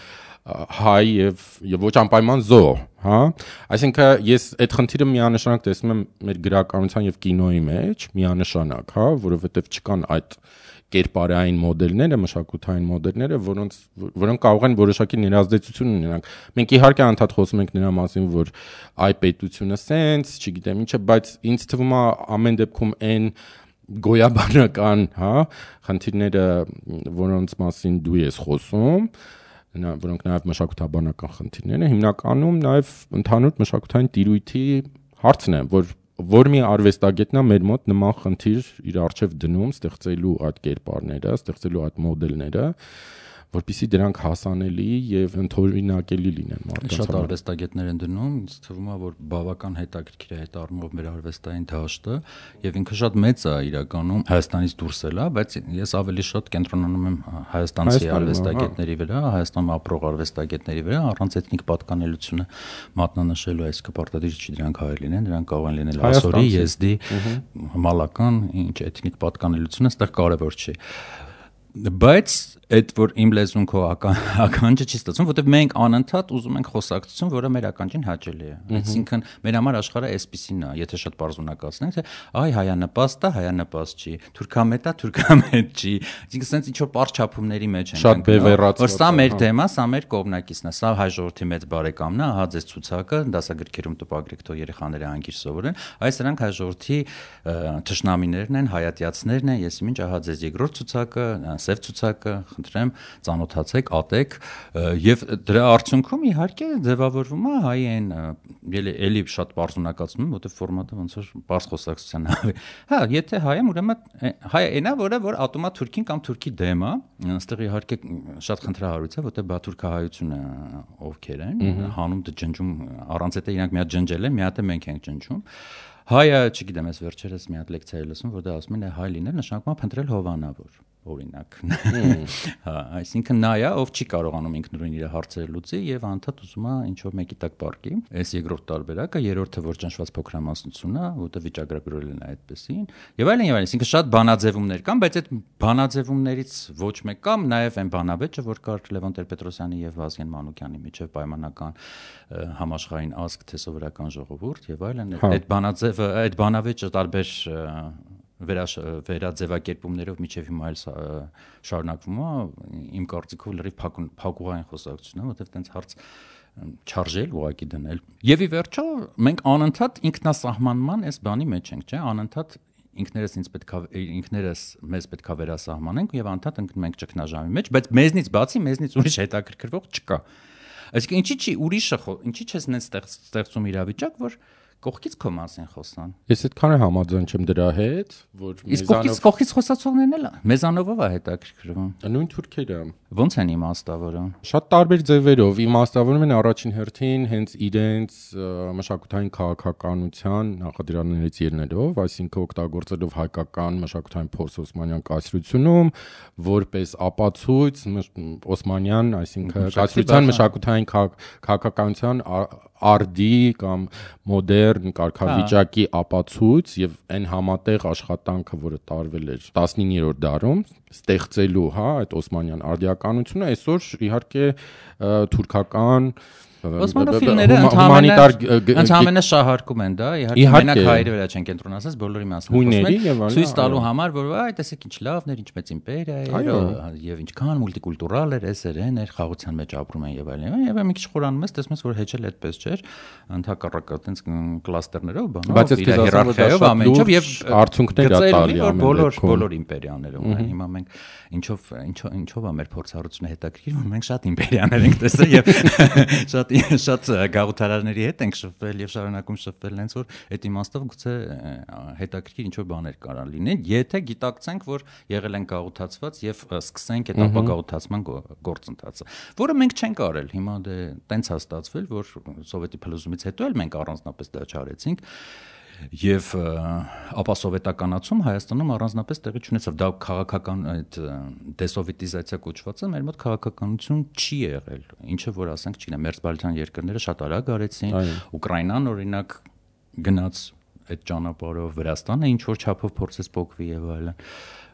հայ եւ ոչ անպայման զոհ, հա, այսինքն ես այդ խնդիրը միանշանակ տեսնում եմ մեր գրականության եւ կինոյի մեջ, միանշանակ, հա, որովհետեւ չկան այդ կերպարային մոդելները, մշակութային մոդելները, որոնք կարող են որոշակի ներազդեցություն ունենալ։ Մենք իհարկե անդադ խոսում ենք նրա մասին, որ այ պետությունը սենց, չգիտեմ ինչը, բայց ինձ թվում է ամեն դեպքում այն գոյաբանական, հա, խնդիրները, որոնց մասին դու ես խոսում, որոնք նաև մշակութաբանական խնդիրներ են, հիմնականում նաև ընդհանուր մշակութային տիրույթի հարցն է, որ մի արվեստագետն է մեր մոտ նման խնդիր իր առջև դնում, ստեղծելու այդ կերպարները, ստեղծելու այդ մոդելները, որպեսզի դրանք հասանելի եւ ընդօրինակելի լինեն մարդկանց համար։ Շատ արվեստագետներ են դնում, ինձ թվում է, որ բավական հետաքրքիր է այդ առումով մեր արվեստային դաշտը եւ ինքը շատ մեծ է իրականում Հայաստանից դուրս էլ է, բայց ես ավելի շատ կենտրոնանում եմ հայաստանցի արվեստագետների վրա, Հայաստանում ապրող արվեստագետների վրա, առանց էթնիկ պատկանելությունը մատնանշելու, այսինքն պարտադիր չի դրանք հայեր լինեն, դրանք կարող են լինել ասորի, եզդի, մալական, ինչ էթնիկ պատկանելությունը այստեղ կարևոր չի։ Բայց այդ որ իմ լեզուն քո ականջը չի ստացվում, որտեղ մենք անընդհատ ուզում ենք խոսակցություն, որը մեր ականջին հաճելի է։ Այսինքն մեր համար աշխարհը էսպիսին է, եթե շատ պարզունակացնենք, թե այ հայանպաստ է, հայանպաստ չի, թուրքամետ է, թուրքամետ չի։ Այսինքն sense ինչ որ պարզ չափումների մեջ ենք։ Շատ բևեռացված։ Որ սա մեր թեմա, սա մեր կողմնակիցն է, սա հայ ժողովրդի մեծ բարեկամն է, ահա ձեզ ցուցակը, դասագրքերում տպագրեք, թող երեխաները անկիր սովորեն։ Այս նրանք հայ ժողովրդի թշնամիներն են, հայատյացներն են, ես ինչ ահա ձեզ երկրորդ ցուցակը, սև ցուցակը խնդրեմ ծանոթացեք, ատեք եւ դրա արդյունքում իհարկե ձևավորվում է հայ այն էլի շատ բարձունակացնում, որտեղ ֆորմատը ոնց որ բարձ խոսակցության է։ Հա, եթե հայ եմ, ուրեմն հայ այնա, որ ատոմա թուրքին կամ թուրքի դեմ է, այստեղ իհարկե շատ խնդրահարույց է, որտեղ բաթուրքահայությունը ովքեր են, հանում ջնջում առանց եթե իրանք մի հատ ջնջել են, մի հատ է մենք ենք ջնջում։ Հայը, չգիտեմ, ես վերջերս մի հատ լեկցիա եմ լսում, որտեղ ասում են հայ լինել նշանակում է փնտրել հովանավոր։ օրինակ։ Հա, այսինքն նա է, ով չի կարողանում ինքնուրույն իր հարցերը լուծի եւ անդադ ուզում է ինչ որ մեկի տակ պարկի։ Այս երկրորդ տարբերակը, երրորդը որ ճնշված փոքրամասնությունն է, որտեղ վիճակագրել են այդպեսին։ Եվ այլն, այսինքն շատ բանաձևումներ կան, բայց այդ բանաձևումներից ոչ մեկ կամ նաեւ այն բանավեճը, որ կար Լևոն Տեր-Պետրոսյանի եւ Վազգեն Մանուկյանի միջեւ պայմանական համաշխարհային ազգ թե սովորական ժողովուրդ եւ այլն, այդ բանավեճը տարբեր վերաձևակերպումներով միջև հիմա էլ շարունակվում է, իմ կարծիքով լրիվ փակուղային խոսակցություն է, որովհետև տենց հարց չարժել ուղակի դնել։ Եվ ի վերջո մենք անընդհատ ինքնասահմանման այս բանի մեջ ենք, չէ՞, անընդհատ ինքներս մեզ պետք է վերասահմանենք եւ անդադ ընկնում ենք ճգնաժամի մեջ, բայց մեզնից բացի մեզնից ուրիշ հետաքրքրվող չկա։ Այսինքն ինչի՞ չես նենց ստեղծում իրավիճակ, որ կողքից քո մասին խոսան։ Ես այդքան համաձայն չեմ դրա հետ, որ մեզանով կողքից խոսացողներն էլ մեզանով է հետաքրքրվում։ Նույն թուրքերը ոնց են իմաստավորում։ Շատ տարբեր ձևերով իմաստավորում են առաջին հերթին հենց իրենց մշակութային քաղաքականության նախադրաններից ելնելով, այսինքն օգտագործելով հայկական մշակութային փորձ Օսմանյան կայսրությունում, որպես ապացույց Օսմանյան, այսինքն կայսրության մշակութային քաղաքականության արդի կամ մոդեռն կարգավիճակի ապացույց եւ այն համատեղ աշխատանքը, որը տարվել էր 19-րդ դարում, ստեղծելու, այդ օսմանյան արդիականությունը, այսօր իհարկե թուրքական Օսմանոֆիլները ընդհանրապես շահարկում են դա, իհարկե մենակ հայերի վրա չեն կենտրոնացած, բոլորի մասին ցույց տալու համար, որ այ տեսեք ինչ լավն էր, ինչ մեծ իմպերիա էր եւ ինչքան մուլտիկուլտուրալ էր, էսերեն էր, խաղաղության մեջ ապրում են եւ այլն։ Եվ մի քիչ խորանում ես, տեսնում ես, որ հեչել այդպես չէր, ընդհակառակը այտենց կլաստերներով, բանով, իր հիերարխիայով ամեն ինչով եւ արդյունքներ է տալի բոլոր իմպերիաները ունեն։ Հիմա մենք ինչով է մեր փորձառությունը հետաքրքիր, որ մենք շատ իմպերիաներ ենք տեսել եւ շատ գաղութարարների հետ ենք շփվել եւ շարունակում շփվել, հենց որ այդ իմաստով գուցե հետաքրքիր ինչ որ բաներ կարան լինեն, եթե գիտակցենք, որ եղել են գաղութացված եւ սկսենք այդ ապագաղութացման գործընթացը, որը մենք չենք արել։ Հիմա դե տենց է ստացվել, որ սովետի փլուզումից հետո էլ մենք առանձնապես դա չարեցինք։ Եվ ապասովետականացում Հայաստանում առանձնապես տեղի չունեցավ։ Դա քաղաքական այդ դեսովետիզացիա կոչվածը մեր մոտ քաղաքականություն չի եղել։ Ինչը որ ասենք, չգիտեմ, մերձբալթյան երկրները շատ արագ արեցին, Ուկրաինան օրինակ գնաց այդ ճանապարհով, Վրաստանը ինչ որ չափով փորձեց փոխվի եւ այլն։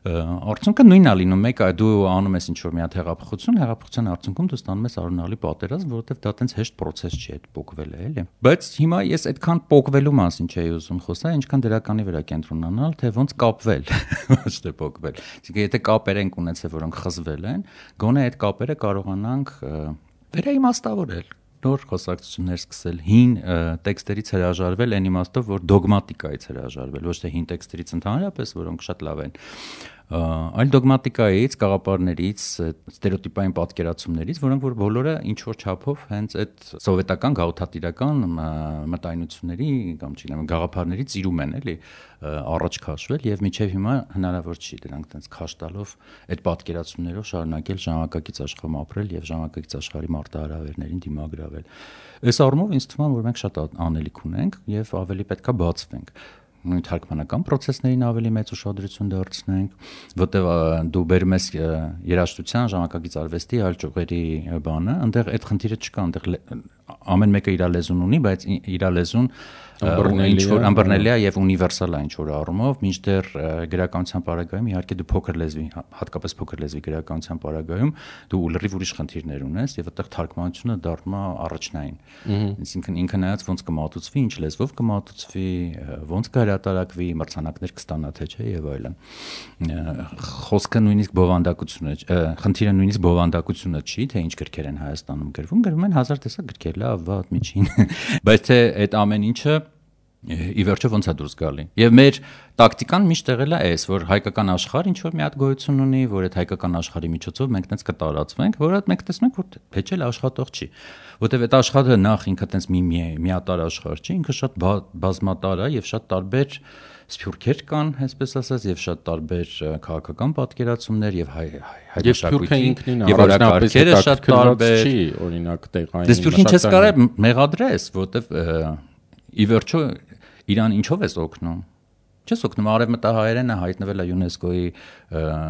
Արդյունքը նույնն է լինում, մեկ դու անում ես ինչ որ մի հատ հեղափոխության արդյունքում դու ստանում ես արունալի պատերազմ, որովհետև դա տենց հեշտ process չի այդ փոխվելը, էլի։ Բայց հիմա ես այդքան փոխվելու մասին չէի ուզում խոսալ, ինչքան դրականի վրա կենտրոնանալ, թե ոնց կապվել, ոչ թե փոխվել։ Իսկ եթե կապեր ենք ունեցել, որոնք խզվել են, գոնե այդ կապերը կարողանանք վերաիմաստավորել, նոր խոսակցություններ սկսել, հին տեքստերից հրաժարվել այն իմաստով, որ դոգմատիկայից հրաժարվել, ոչ թե հին տեքստերից ընդհանրապես, որոնք շատ լավ են, այլ դոգմատիկայից, գաղափարներից, ստերեոտիպային պատկերացումներից, որոնք որ բոլորը ինչ որ չափով հենց այդ սովետական գաղութատիրական մտայնությունների կամ չգիտեմ գաղափարներից ծիրում են, էլի, առաջ քաշվել եւ մինչեւ հիմա հնարավոր չի դրանք տենց քաշ տալով այդ պատկերացումներով շարունակել ժամանակակից աշխարհում ապրել եւ ժամանակակից աշխարհի մարտահրավերներին դիմագրավել։ Այս առումով ինձ թվում է, որ մենք շատ անելիք ունենք եւ ավելի պետքա բացվենք։ Նույն թարգմանական process-ներին ավելի մեծ ուշադրություն դարձնենք, որտեղ դու բերում ես երաժշտության, ժամանակակից արվեստի այլ ճյուղերի բանը, այնտեղ այդ խնդիրը չկա, այնտեղ ամեն մեկը իր լեզուն ունի, բայց իր լեզուն ինչ որ ըմբռնելի է եւ ունիվերսալ է ինչ որ առումով, մինչդեռ գրականության պարագայում իհարկե դու փոքր լեզվի, հատկապես փոքր լեզվի գրականության պարագայում դու լրիվ ուրիշ խնդիրներ ունես եւ այդտեղ թարգմանությունը դառնում է առաջնային։ Այսինքն ինքը նայած ոնց կմատուցվի, ինչ լեզվով կմատուցվի, ոնց կհրատարակվի, մրցանակներ կստանա թե չէ եւ այլն։ Խոսքը նույնիսկ բովանդակությունը, խնդիրը նույնիսկ բովանդակությունը չի, թե ինչ գրքեր են Հայաստանում գրվում են 1000 տեսակ գրքեր, լավ, վատ, միջին, բայց թե այդ ամեն ինչը ի վերջո ոնց է դուրս գալի։ Եվ մեր տակտիկան միշտ եղել է այս, որ հայկական աշխարհ ինչ որ մի հատ գոյություն ունի, որ այդ հայկական աշխարհի միջոցով մենք տենց կտարածվենք, որ մենք տեսնենք, որ հեչել աշխատող չի։ Որտեւ այդ աշխարհը նախ ինքը տենց միատար աշխարհ չի, ինքը շատ բազմատար է եւ շատ տարբեր սփյուռքեր կան, այսպես ասած, եւ շատ տարբեր քաղաքական պատկերացումներ եւ հայ եւ օրակարգերը շատ տարբեր չի, օրինակ տեղային։ Դες սփյուռքին չես կարող մեղադրես, որտեվ ի վերջո իրան ինչով ես օգնում։ Չես օգնում արևմտահայերենը հայտնվել է ՅՈՒՆԵՍԿՕ-ի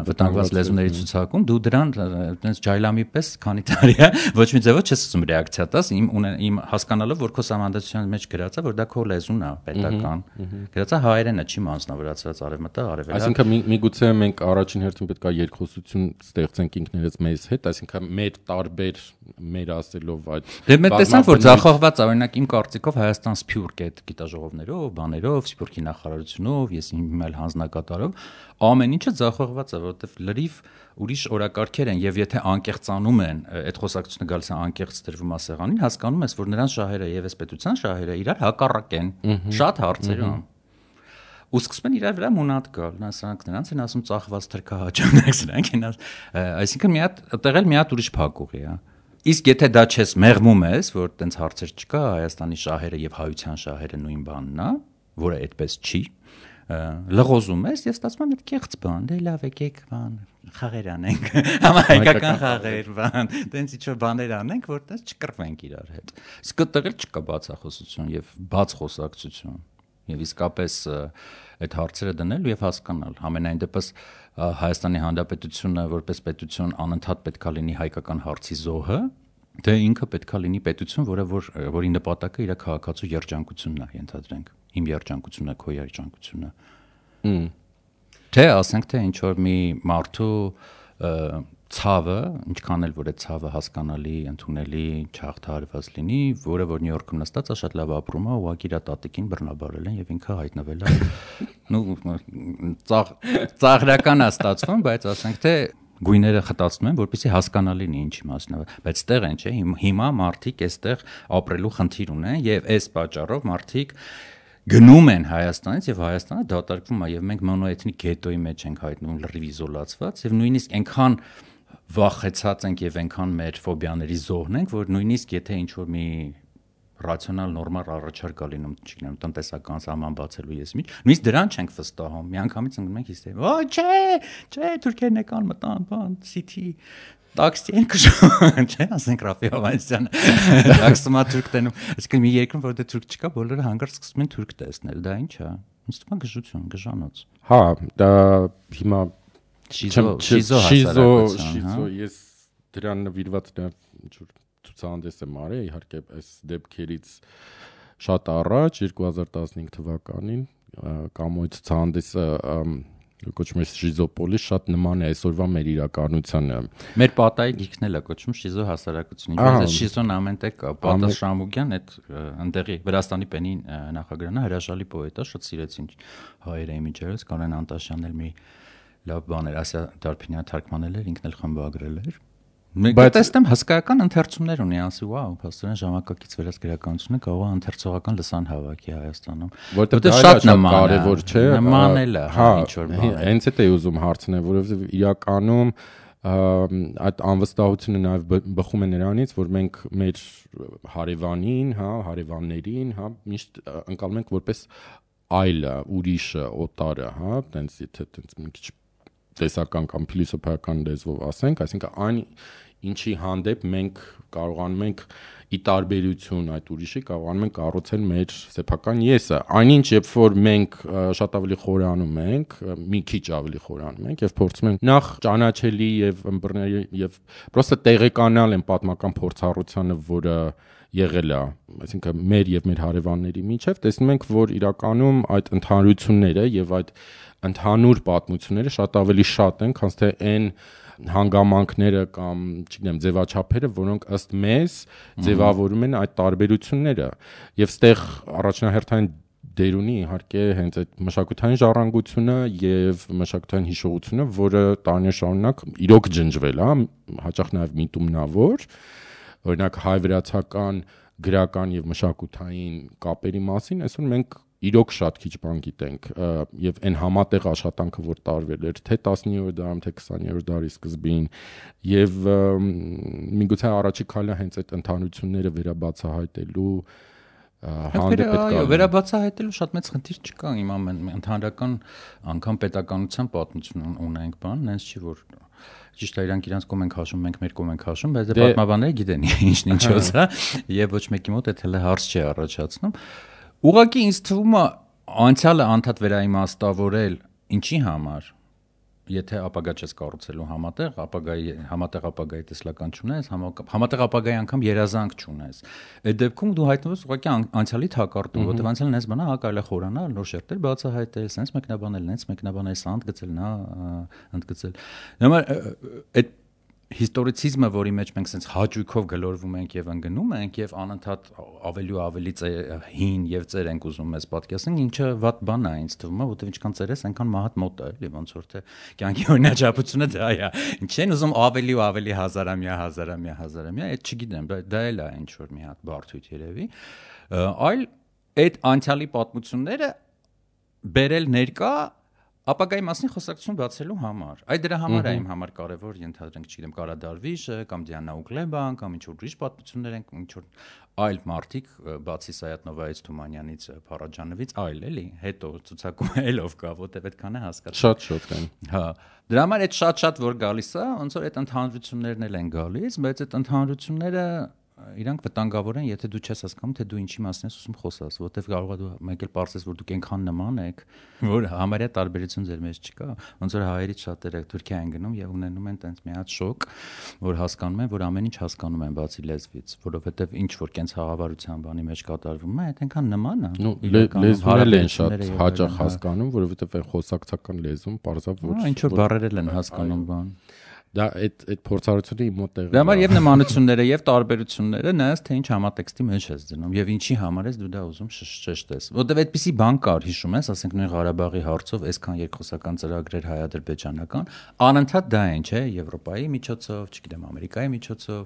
վտանգված լեզուների ցուցակում, դու դրան այտենց ջայլամի պես քանի տարի է ոչ մի ձևով չես ուզում ռեակցիա տաս, իմ հասկանալով, որ քո սահմանադրության մեջ գրած է, որ դա քո լեզուն է, պետական։ Գրած է հայերենը, չի մանձնավորացված արևմտա, արևելա։ Այսինքն միգուցե մենք առաջին հերթին պետք է երկխոսություն ստեղծենք ինքներս մեզ հետ, այսինքն մեր տարբեր մեր ասելով այդ Դե մենք տեսանք, որ ձախողված է, օրինակ իմ կարծիքով Հայաստան Սփյուռք այդ գիտաժողովներով, բաներով, Սփյուռքի նախարարությունով, ես իմ այլ հանձնակատարով, ամեն ինչը ձախողված է, որովհետև լրիվ ուրիշ օրակարգեր են, եւ եթե անկեղծանում են, այդ խոսակցությունը գալիս է անկեղծ դրվում է սեղանին, հասկանում ես, որ նրանց շահերը եւ այս պետության շահերը իրար հակառակ են շատ հարցերում։ Ու սկսում են իրար վրա մունատ գալ, սրանք նրանց են ասում ծախված թրքահաճանակ, սրանք են, այսինքն մի հատ տեղել մի հատ ուրիշ փակուղի է։ Իսկ եթե դա չես մեղմում ես, որ տենց հարցեր չկա, Հայաստանի շահերը եւ հայության շահերը նույն բանն է, որը այդպես չի, լղոզում ես եւ ստացվում է մի կեղծ բան, դե լավ եկեք բան, խաղեր անենք, համահայկական խաղեր, բան, տենց ինչ-որ բաներ անենք, որ տենց չկռվենք իրար հետ։ Իսկ այդտեղ չկա բացախոսություն եւ բաց խոսակցություն։ Եվ իսկապես այդ հարցերը դնել եւ հասկանալ։ Համենայն դեպս Հայաստանի Հանրապետությունը որպես պետություն անընդհատ պետքա լինի հայկական հարցի զոհը, դե ինքը պետքա լինի պետություն, որի նպատակը իր քաղաքացու երջանկությունն է, ենթադրենք։ Իմ երջանկությունը, քո երջանկությունը։ Թե ասենք թե ինչ որ մի մարդու ցավը, ինչքան էլ որ այդ ցավը հասկանալի, ընդունելի, չհաղթահարված լինի, որը որ Նյու Յորքում նստած է, շատ լավ ապրում է, ուղղակի իր տատիկին բռնաբարել են եւ ինքը հայտնվել է։ Ծաղրական է ստացվում, բայց ասենք թե գույները խտացնում են, որպեսզի հասկանալի լինի ինչի մասն է, բայց ստեղ են, չէ՞, հիմա մարդիկ այստեղ ապրելու խնդիր ունեն եւ այս պատճառով մարդիկ գնում են Հայաստանից եւ Հայաստանը դատարկվում է եւ մենք մոնոէթնիկ գետոյի մեջ ենք հայտնվում լրիվ իզոլացված եւ նույնիսկ այնքան վախեցած ենք եւ այնքան մեր ֆոբիաների զոհն ենք, որ նույնիսկ եթե ինչ-որ մի ռացիոնալ նորմալ առաջարկ է լինում, չգիտեմ, տնտեսական սահման բացելու ես միջ, նույնիսկ դրան չենք վստահում։ Միանգամից ընկնում ենք հիստերիա։ Ոչ, չէ, թուրքերն եկան մտան, բան, City տաքսի են քշում, չէ՞, ասենք Ռաֆի Հովանեսյանը տաքսումա թուրք տենում։ Այսինքն մի երկրում որ դե թուրք չկա, բոլորը հանգարց սկսում են թուրք տեսնել, դա ինչ է։ Ինձ թվում է գժություն, գժանոց։ Հա, դա հիմա շիզո, ես դրան նվիրված դա ինչ-որ ցուցահանդես եմ արել, իհարկե այս դեպքերից շատ առաջ 2015 թվականին Կամոյի ցուցահանդեսը կոչվում է Շիզոպոլիս, շատ նման է այսօրվա մեր իրականությանը։ Մեր պատայի գիրքն էլ է կոչվում Շիզո հասարակություն։ Ինքնին Շիզոն ամենտեղ կա։ Պատա Շամուգյան այդ ընդեղի Վրաստանի պենի նախագահն է, հրաշալի պոետ է, շատ սիրեցին հայերը իմիջերս, Կանեն Անտաշյանն էլ մի լավ բան էր, Ասիա Դարփինյանը թարգմանել էր, ինքն էլ խմբագրել էր։ Բայց տեսնեմ հսկայական ընթերցումներ ունի, ասի, վաու, փաստորեն ժամանակակից վերած գրականությունը կարող է ընթերցողական լսան հավաքի Հայաստանում։ Որտեղ շատ կարևոր չէ։ Նմանել է, ինչ որ բան։ Հենց այդ է ուզում հարցնել, որովհետև իրականում այդ անվստահությունը նաև բխում է նրանից, որ մենք մեր հարևանին, հա, հարևաններին, հա, միշտ ընկալում ենք որպես այլը, ուրիշը, օտարը, հա, տենց եթե տենց մի քիչ տեսական կամ փիլիսոփայական լեզվով ասենք, այսինքն այն ինչի հանդեպ մենք կարողանում ենք ի տարբերություն այդ ուրիշի կարողանում ենք կառուցել մեր սեփական եսը։ Այնինչ երբ որ մենք շատ ավելի խորանում ենք, մի քիչ ավելի խորանում ենք եւ փորձում ենք նախ ճանաչելի եւ ըմբռնել եւ պրոստը տեղեկանալ են պատմական փորձառությանը, որը եղել է, այսինքն մեր եւ մեր հարևանների միջև, տեսնում ենք, որ իրականում այդ ընդհանրությունները եւ այդ ընդհանուր պատմությունները շատ ավելի շատ են, քան թե այն հանգամանքները կամ, չգիտեմ, ձևաչափերը, որոնք ըստ մեզ ձևավորում են այդ տարբերությունները։ Եվ ստեղ առաջնահերթային դեր ունի իհարկե հենց այդ մշակութային ժառանգությունը եւ մշակութային հիշողությունը, որը տարիներ շարունակ իրոք ջնջվել է, հաճախ նաեւ միտումնավոր, օրինակ հայ-վրացական գրական եւ մշակութային կապերի մասին, այսօր մենք իրոք շատ քիչ բան գիտենք եւ այն համատեղ աշխատանքը որ տարվել էր թե 19-րդ դարում թե 20-րդ դարի սկզբին եւ միգուցե առաջի քայլը հենց այդ ընդհանրությունները վերաբացահայտելու հանդեպ պետք է վերաբացահայտելու շատ մեծ խնդիր չկա հիմա ընդհանրական անգամ պետականության պատմություն ունենք բան նենց չի որ ճիշտ է իրանք իրանց կողմ են քաշում մենք մեր կողմ ենք քաշում բայց դե պատմաբանները գիտեն ինչն ինչոց է եւ ոչ մեկի մոտ այդ հələ հարց չի առաջացնում Ուղղակի ինձ թվում է անցյալը անդադ վերաիմաստավորել ինչի համար, եթե ապագա չես կառուցելու համատեղ ապագայի տեսլական չունես, համատեղ ապագայի անգամ երազանք չունես, այդ դեպքում դու հայտնվում ես ուղղակի անցյալի թակարդում, որտեղ անցյալն ես բանա կարելի է խորանալ, նոր շերտեր բացահայտել, sense մեկնաբանել, սա ընդգծել, նա ընդգծել։ Նոմար այդ հիստորիցիզմը, որի մեջ մենք sense հաճույքով գլորվում ենք եւ ընկնում ենք եւ անընդհատ ավելի ու ավելի հին եւ ծեր ենք ուզում մեզ պատկերացնենք, ինչը վատ բան է ինձ թվում է, որտեղ ինչքան ծեր ես, այնքան մահատ մոտ է, էլի ոնց որ թե կյանքի օրինաչափությունը դա է։ Ինչ են ուզում ավելի ու ավելի հազարամյա, այդ չգիտեմ, դա էլ է ինչ որ մի հատ բարդույթ երևի, այլ այդ անցյալի պատմությունները բերել ներկա ապագայի մասին խոսակցություն բացելու համար։ Այդ դրա համար է իմ համար կարևոր ենթադրենք, չգիտեմ, Կարադարվիշը կամ Դիանա Ուգլեբան կամ ինչ որ ուրիշ պատմություններ են, ինչ որ այլ մարդիկ, բացի Սայաթնովայից, Թումանյանից, Փարաջանովից, այլ էլի, հետո ցուցակում ելով կա, որտեվ այդքան է հասկացա։ Շատ են։ Հա։ Դրա համար այդ շատ որ գալիս է, ոնց որ այդ ընդհանրություններն էլ են գալիս, բայց այդ ընդհանրությունները իրանք վտանգավոր են, եթե դու չես հասկանում, թե դու ինչի մասին ես ուզում խոսաս, որտեվ կարող է դու մեկ էլ պարզես, որ դուք այնքան նման եք, որ համարյա տարբերություն ձեր մեջ չկա, ոնց որ հայերից շատերը Թուրքիա են գնում եւ ունենում են տենց մի հատ շոկ, որ հասկանում են, որ ամեն ինչ հասկանում են բացի լեզվից, որովհետեւ ինչ որ կենց խաղաղարության բանի մեջ կատարվում է, այդ այնքան նման է։ Լեզվերը են շատ հաճախ հասկանում, որովհետեւ այն խոսակցական լեզուն պարզավ որ ինչ որ բառերել են հասկանում բան։ Դա այդ փորձառությունը իմ մոտ տեղի։ Դա համար եւ նմանությունները եւ տարբերությունները նայած թե ինչ համատեքստի մեջ ես դնում եւ ինչի համար ես դու դա ուզում շեշտես։ Որտեւ այդպիսի բան կար, հիշում ես, ասենք նույն Ղարաբաղի հարցով այսքան երկխոսական ծրագրեր հայ-ադրբեջանական, անընդհատ դա են, չէ, Եվրոպայի միջոցով, չգիտեմ, Ամերիկայի միջոցով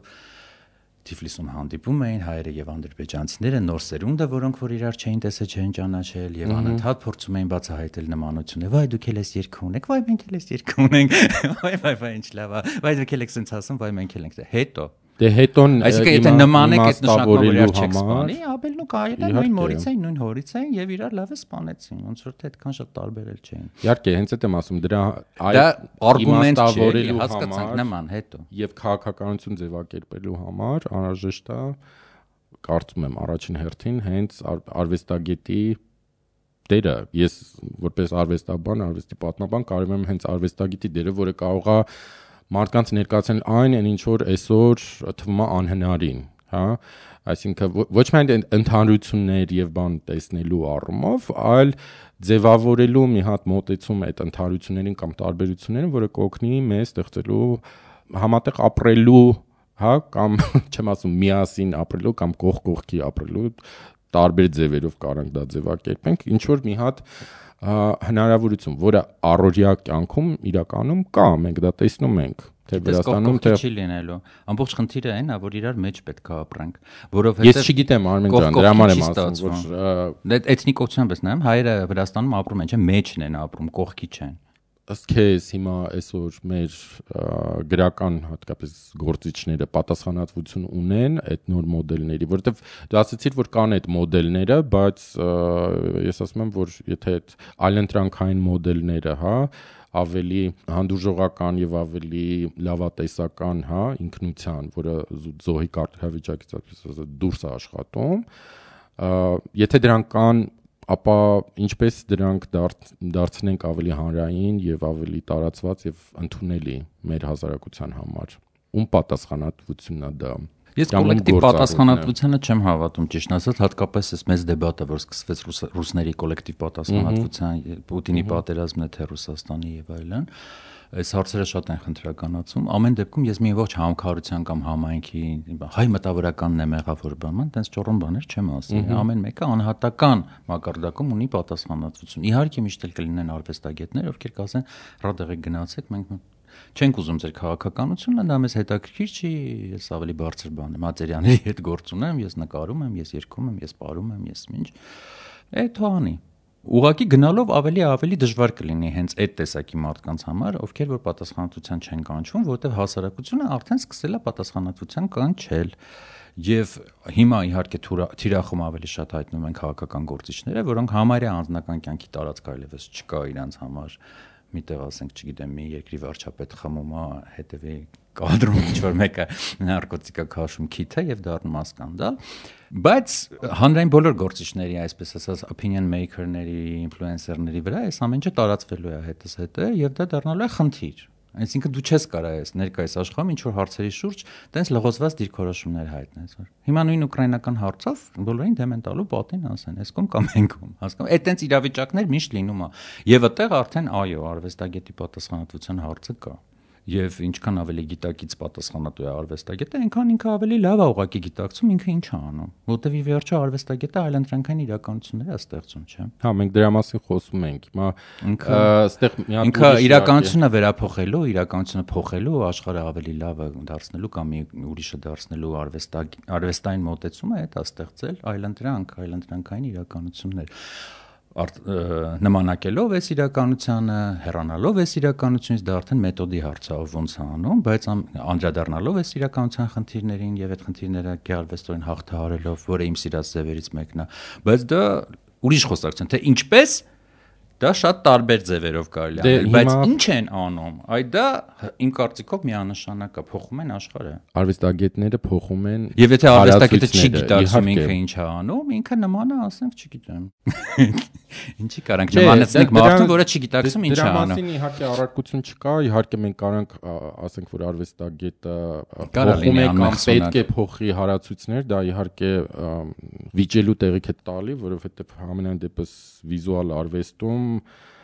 Թիֆլիսում հանդիպում էին հայերը եւ ադրբեջանցիները, նոր սերունդը, որոնք որ իրար չէին տեսել, չէին ճանաչել եւ անընդհատ փորձում էին բացահայտել նմանությունները։ Վայ դուք էլ ես երգ ունեք, վայ մենք էլ ես երգ ունենք։ Վայ ինչ լավ է։ Վայ դուք էլ եք sense ասում, վայ մենք էլ ենք։ Հետո դե հետոն այսինքն եթե նման եք այդ նշանակով իրար չեք սպանի, ապել նու կարելի է նույն մորից էին, նույն հորից էին եւ իրար լավ է սպանեցին, ոնց որ թե այդքան շատ տարբերել չէին։ Իհարկե, հենց այդ եմ ասում, դրա արգումենտ չէ, հասկացանք նման հետո։ Եվ քաղաքականություն ձևակերպելու համար անհրաժեշտ է, կարծում եմ, առաջին հերթին հենց արվեստագետի դերը։ Ես որպես արվեստաբան, արվեստի պատմաբան կարևորում եմ հենց արվեստագետի դերը, որը կարող է մարդկանց ներկայացնել այն ինչ որ այսօր թվում է անհնարին, հա, այսինքն ոչ միայն ընդհանրություններ եւ բան տեսնելու առումով, այլ ձևավորելու մի հատ մոտեցում այդ ընդհանրություններին կամ տարբերություններին, որը կօգնի մեզ ստեղծելու համատեղ ապրելու, հա, կամ չեմ ասում միասին ապրելու կամ կողքի ապրելու տարբեր ձևերով կարանք դա ձևակերպենք, ինչ որ մի հատ հնարավորություն, որը առօրյա կյանքում իրականում կա, մենք դա տեսնում ենք, թե Վրաստանում թե չի լինելու։ Ամբողջ խնդիրը այն է, որ իրար մեջ պետք է ապրենք, որովհետև ես չգիտեմ Արմեն ջան, դրա համար եմ ասում, որ էթնիկությամբ ես նայում, հայերը Վրաստանում ապրում են, չէ՞, մեջն են ապրում, կողքի չեն։ Ըստ քեզ հիմա այսօր մեր գրական հատկապես գործիչները պատասխանատվություն ունեն այդ նոր մոդելների, որովհետև դու ասացիր, որ կան այդ մոդելները, բայց ես ասում եմ, որ եթե այդ այլընտրանքային մոդելները, հա, ավելի հանդուրժողական եւ ավելի լավատեսական, հա, ինքնության, որը զոհի կարգավիճակից ասած դուրս է աշխատում, եթե դրանք կան, ապա ինչպես դրանք դարձնենք ավելի հանրային եւ ավելի տարածված եւ ընդունելի մեր հասարակության համար։ Ում պատասխանատվությունն է դա։ Ես կոլեկտիվ պատասխանատվությանը չեմ հավատում, ճիշտ ասած, հատկապես այս մեծ դեբատը, որ սկսվեց ռուսների կոլեկտիվ պատասխանատվության, Պուտինի պատերազմն է թե Ռուսաստանի եւ այլն, այս հարցերը շատ են խնդրականացում։ Ամեն դեպքում ես մի ողջ համակարգության կամ համայնքի հայ մտավորականն եմ եղավ որ բան, տենց ճորոն բաներ չեմ ասի։ Ամեն մեկը անհատական մակարդակում ունի պատասխանատվություն։ Իհարկե միշտ էլ կլինեն արվեստագետներ, ովքեր կասեն՝ «Ռադեղեք գնացեք, մենք չենք ուզում ձեր քաղաքականությունը, դա մեզ հետաքրքիր չի, ես ավելի բարձր բան եմ, Ածերյանների հետ գործ ունեմ, ես նկարում եմ, ես երգում եմ, ես պարում եմ, ես ինչ»։ Թողանի։ Ուղղակի գնալով ավելի դժվար կլինի հենց այդ տեսակի մարդկանց համար, ովքեր որ պատասխանատվության չեն կանչվում, որտեղ հասարակությունը արդեն սկսել է պատասխանատվության կանչել։ Եվ հիմա իհարկե թիրախում ավելի շատ հայտնվում են քաղաքական գործիչները, որոնք համարյա անձնական կյանքի տարածք այլևս չկա իրանց համար միտեղ ասենք, չգիտեմ, մի երկրի վարչապետ խմում է, հետևի կադրում ինչ-որ մեկը նարկոտիկա քաշում քիթը եւ դառնում է սկանդալ, բայց հանրային բոլոր գործիչների, այսպես ասած, opinion maker-ների, influencer-ների վրա այս ամեն ինչը տարածվելու է հետզհետե եւ դա դառնալու է խնդիր։ Այսինքն դու չես կարող ես ներկայիս աշխարհում ինչ որ հարցերի շուրջ տենց լղոզված դիրքորոշումներ հայտնես, որ հիմա նույն ուկրաինական հարցով բոլորին դեմ են տալու պատին ասեն, այս կողմ կամ այն կողմ, հասկանու՞մ, այդ տենց իրավիճակներ միշտ լինում է եւ այդտեղ արդեն այո, արվեստագետի պատասխանատվության հարցը կա։ Եվ ինչքան ավելի գիտակից պատասխանատու է արվեստագետը, այնքան ինքը ավելի լավ է ուղղակի գիտակցում ինքը ինչ է անում, որտեվ ի վերջո արվեստագետը այլընտրանքային իրականություններ է ստեղծում, չէ՞։ Հա, մենք դրա մասին խոսում ենք։ Հիմա այստեղ ինքը իրականությունը վերափոխելու, իրականությունը փոխելու, աշխարհը ավելի լավ դարձնելու կամ ուրիշը դարձնելու արվեստային մոտեցումը է դա ստեղծել այլընտրանքային իրականություններ։ Նմանակելով այս իրականությանը, հեռանալով այս իրականությունից դա արդեն մեթոդի հարց է, ոնց է անում, բայց անդրադառնալով այս իրականության խնդիրներին եւ այդ խնդիրները գեղարվեստորեն հաղթահարելով, որը իմ սիրած ձևերից մեկն է, բայց դա ուրիշ խոսակցություն, թե ինչպես դա շատ տարբեր ձևերով կարելի է անել, բայց ինչ են անում, այդ դա իմ կարծիքով միանշանակ է, փոխում են աշխարհը։ Արվեստագետները փոխում են։ Եվ եթե արվեստագետը չի գիտակցում ինքը ինչ է անում, ինքը նման է, ասենք, չգիտեմ։ Ինչի կարանք նմանեցնենք մարդուն, որը չի գիտակցում ինչ է անում։ Դրա մասին իհարկե առարկություն չկա, իհարկե մենք կարանք ասենք, որ արվեստագետը փոխում է կամ պետք է փոխի հարացույցներ, դա իհարկե վիճելու տեղիք է տալի, որովհետև համենայն դեպս վիզուալ արվեստում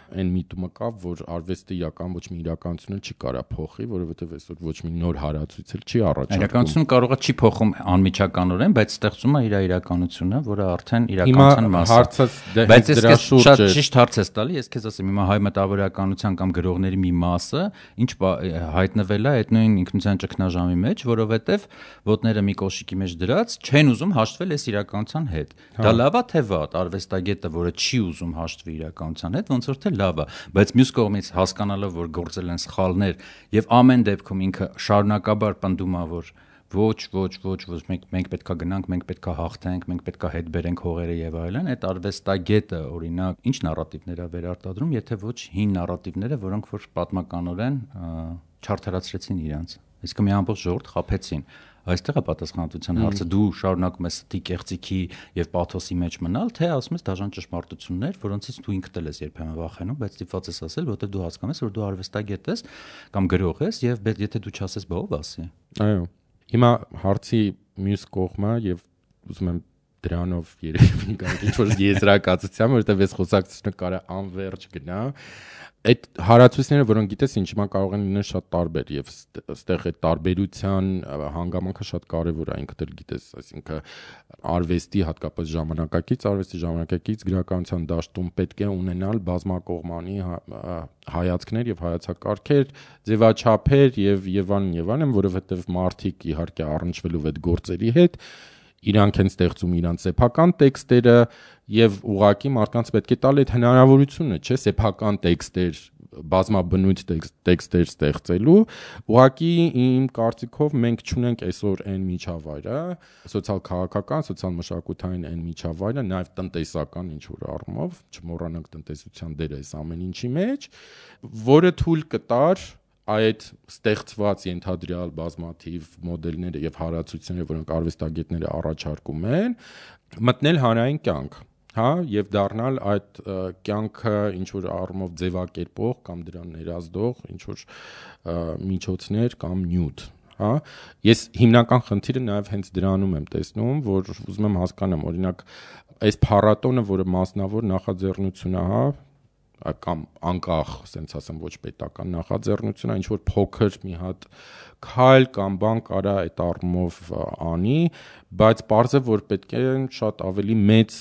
այն միտումը կա, որ արվեստը իրական ոչ մի իրականությունը չի կարա փոխի, որովհետև այսօր ոչ մի նոր հարացույց էլ չի առաջարկում։ Իրականությունը կարող է չի փոխում անմիջականորեն, բայց ստեղծում է իր իրականությունը, որը արդեն իրականության մաս է։ Բայց դրա շուրջ շատ ճիշտ հարց ես տալի, ես քեզ ասեմ, հիմա հայ մտավորականության կամ գրողների մի մասը ինչ հայտնվել է այդ նույն ինքնության ճգնաժամի մեջ, որովհետև ոտները մի կոշիկի մեջ դրած չեն ուզում հաշտվել այս իրականության հետ։ Դա լավ է թե վատ, արվեստագետը, որը չի ուզում հաշտվի իրականության հետ, ոնց որ թե լավ է, բայց մյուս կողմից հասկանալով, որ գործել են սխալներ եւ ամեն դեպքում ինքը շարունակաբար պնդում է, որ ոչ, մենք պետքա գնանք, մենք պետքա հաղթենք, մենք պետքա հետ բերենք հողերը եւ այլն, այդ արվեստագետը օրինակ ինչ նարատիվներ է վերարտադրում, եթե ոչ հին նարատիվները, որոնք որ պատմականորեն չարթարացրեցին իրանց։ Իսկ մի ամբողջ ժողովուրդ խաբեցին։ Այստեղ է պատասխանատվության հարցը, դու շարունակում ես ստի կեղծիքի եւ պաթոսի մեջ մնալ, թե ասում ես դաժան ճշմարտություններ, որոնցից դու ինքդ ես երբեմն վախենում, բայց ստիպված ես ասել, որտեղ դու հասկանում ես, որ դու արվեստագետ ես կամ գրող ես եւ եթե դու չասես, բա ով ասի։ Այո։ Հիմա հարցի մյուս կողմը եւ ուզում եմ դրանով երևի գալ ինչ-որ եզրակացության, որովհետեւ այս խոսակցությունը կարա անվերջ գնա։ Այդ հարացույցները, որոնք գիտես, ինչ հիմա կարող են լինել շատ տարբեր եւ այստեղ այդ տարբերության հանգամանքը շատ կարեւոր է, ինքդ էլ գիտես, այսինքն արվեստի հատկապես ժամանակակից գրականության դաշտում պետք է ունենալ բազմակողմանի հայացքներ եւ հայացակարգեր, ձևաչափեր եւ այլն, որովհետեւ մարդիկ իհարկե առնչվելով այդ գործերի հետ իրանք են ստեղծում իրանց սեփական տեքստերը եւ ուղղակի մարդկանց պետք է տալ այդ հնարավորությունը, չէ՞, սեփական տեքստեր, բազմաբնույթ տեքստեր ստեղծելու, ուղղակի իմ կարծիքով մենք չունենք այսօր այն միջավայրը, սոցիալ-քաղաքական, սոցիալ-մշակութային այն միջավայրը, նաեւ տնտեսական ինչ որ առումով, չմոռանանք տնտեսության դերը այս ամեն ինչի մեջ, որը թույլ կտար այդ ստեղծված ենթադրյալ բազմաթիվ մոդելները եւ հարացությունները, որոնք արվեստագետները առաջարկում են, մտնել հանրային կյանք, հա, եւ դառնալ այդ կյանքը ինչ որ առումով ձևակերպող կամ դրան ներազդող ինչ որ միջոցներ կամ նյութ, հա։ Ես հիմնական խնդիրը նաեւ հենց դրանում եմ տեսնում, որ ուզում եմ հասկանամ, օրինակ, այս փառատոնը, որը մասնավոր նախաձեռնություն է, հա, կամ անկախ, ասենց ասեմ, ոչ պետական նախաձեռնություն, ինչ որ փոքր մի հատ քայլ կամ բան կարա այդ առումով անի, բայց պարզ է, որ պետք է շատ ավելի մեծ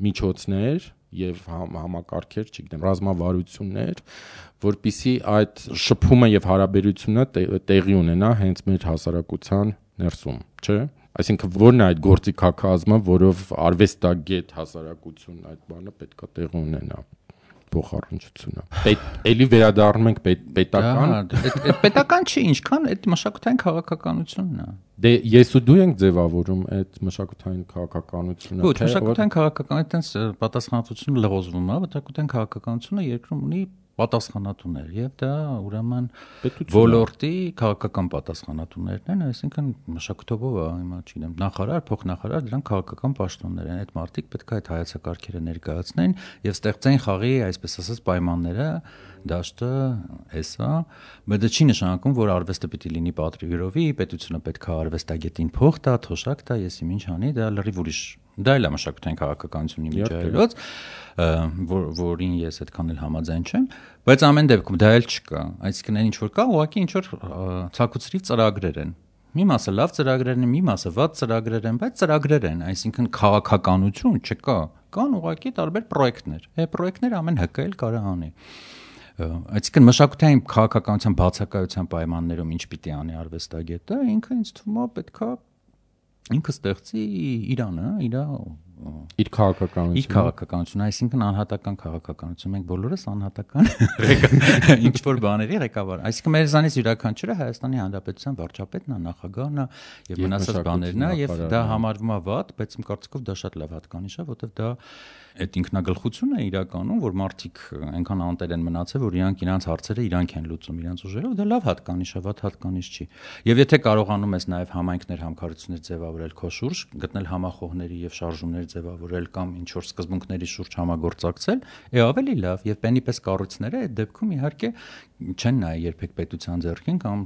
միջոցներ եւ համակարգեր, չգիտեմ, ռազմավարություններ, որպիսի այդ շփումը եւ հարաբերությունը տեղի ունենա հենց մեր հասարակության ներսում, չէ՞։ Այսինքն որն է այդ գործիքակազմը, որով արվեստագետ հասարակություն այդ բանը պետքա տեղի ունենա։ Փոխառնչությունը։ Էլի վերադառնում ենք պետական։ Այդ պետական չի, ինչքան այդ մշակութային քաղաքականությունն է։ Դե ես ու դու ենք ձևավորում այդ մշակութային քաղաքականությունը։ Ոչ, մշակութային քաղաքականությունը այդտենց պատասխանատվությունը լղոզվում է, մշակութային քաղաքականությունը երկրում ունի պատասխանատուներ եւ դա ուրեմն ոլորտի քաղաքական պատասխանատուներն են, այսինքն մշակութով հիմա չգիտեմ նախարար, փոխնախարար, դրանք քաղաքական պաշտոններ են, այդ մարդիկ պետք է այդ հայեցակարգերը ներկայացնեն եւ ստեղծեն խաղի, այսպես ասած, պայմանները, դաշտը էսա, բայց դա չի նշանակում, որ արվեստը պիտի լինի պատրիգրովի, պետությունը պետք է արվեստագետին փող տա, թոշակ տա, եսի ինչ անի, դա լրիվ ուրիշ, դա էլ է մշակութային քաղաքականությունի միջայլոց, որին ես այդքան էլ համաձայն չեմ, բայց ամեն դեպքում դա էլ չկա, այսինքն ինչ որ կա, ուղղակի ինչ որ ցակուցրիվ ծրագրեր են։ Մի մասը լավ ծրագրեր են, մի մասը վատ ծրագրեր են, բայց ծրագրեր են, այսինքն քաղաքականություն չկա, կան ուղղակի տարբեր պրոյեկտներ։ Այդ պրոյեկտները ամեն ՀԿ էլ կարող անի։ Այսինքն մշակութային քաղաքականության բացակայության պայմաններում ինչ պիտի անի արվեստագետը, ինքը ինձ թվում է պետքա ինքը ստեղծի Իրանը, իր քաղաքականությունը, այսինքն անհատական քաղաքականություն, մենք բոլորս անհատական ինչ որ բաների ղեկավար, այսինքն մեզանից յուրաքանչյուրը Հայաստանի Հանրապետության վարչապետն է, նախագահն է եւ մնացած բաներն է եւ դա համարվում է վատ, բայց իմ կարծիքով դա շատ լավ հատկանիշ է, որովհետեւ դա այդ ինքնագլխությունն է իրականում, որ մարդիկ այնքան անտեր են մնացել, որ իրանք հարցերը իրանք են լուծում իրենց ուժերով, դա լավ հատկանիշ է, վատ հատկանիշ չի։ Եվ եթե կարողանում ես նաև համայնքներ, համքարություններ ձևավորել քո շուրջ, գտնել համախոհների եւ շարժումներ ձևավորել կամ ինչ որ սկզբունքների շուրջ համագործակցել, ավելի լավ եւ բենի պես կառույցները այդ դեպքում իհարկե չեն նայ երբեք պետության ձեռքին կամ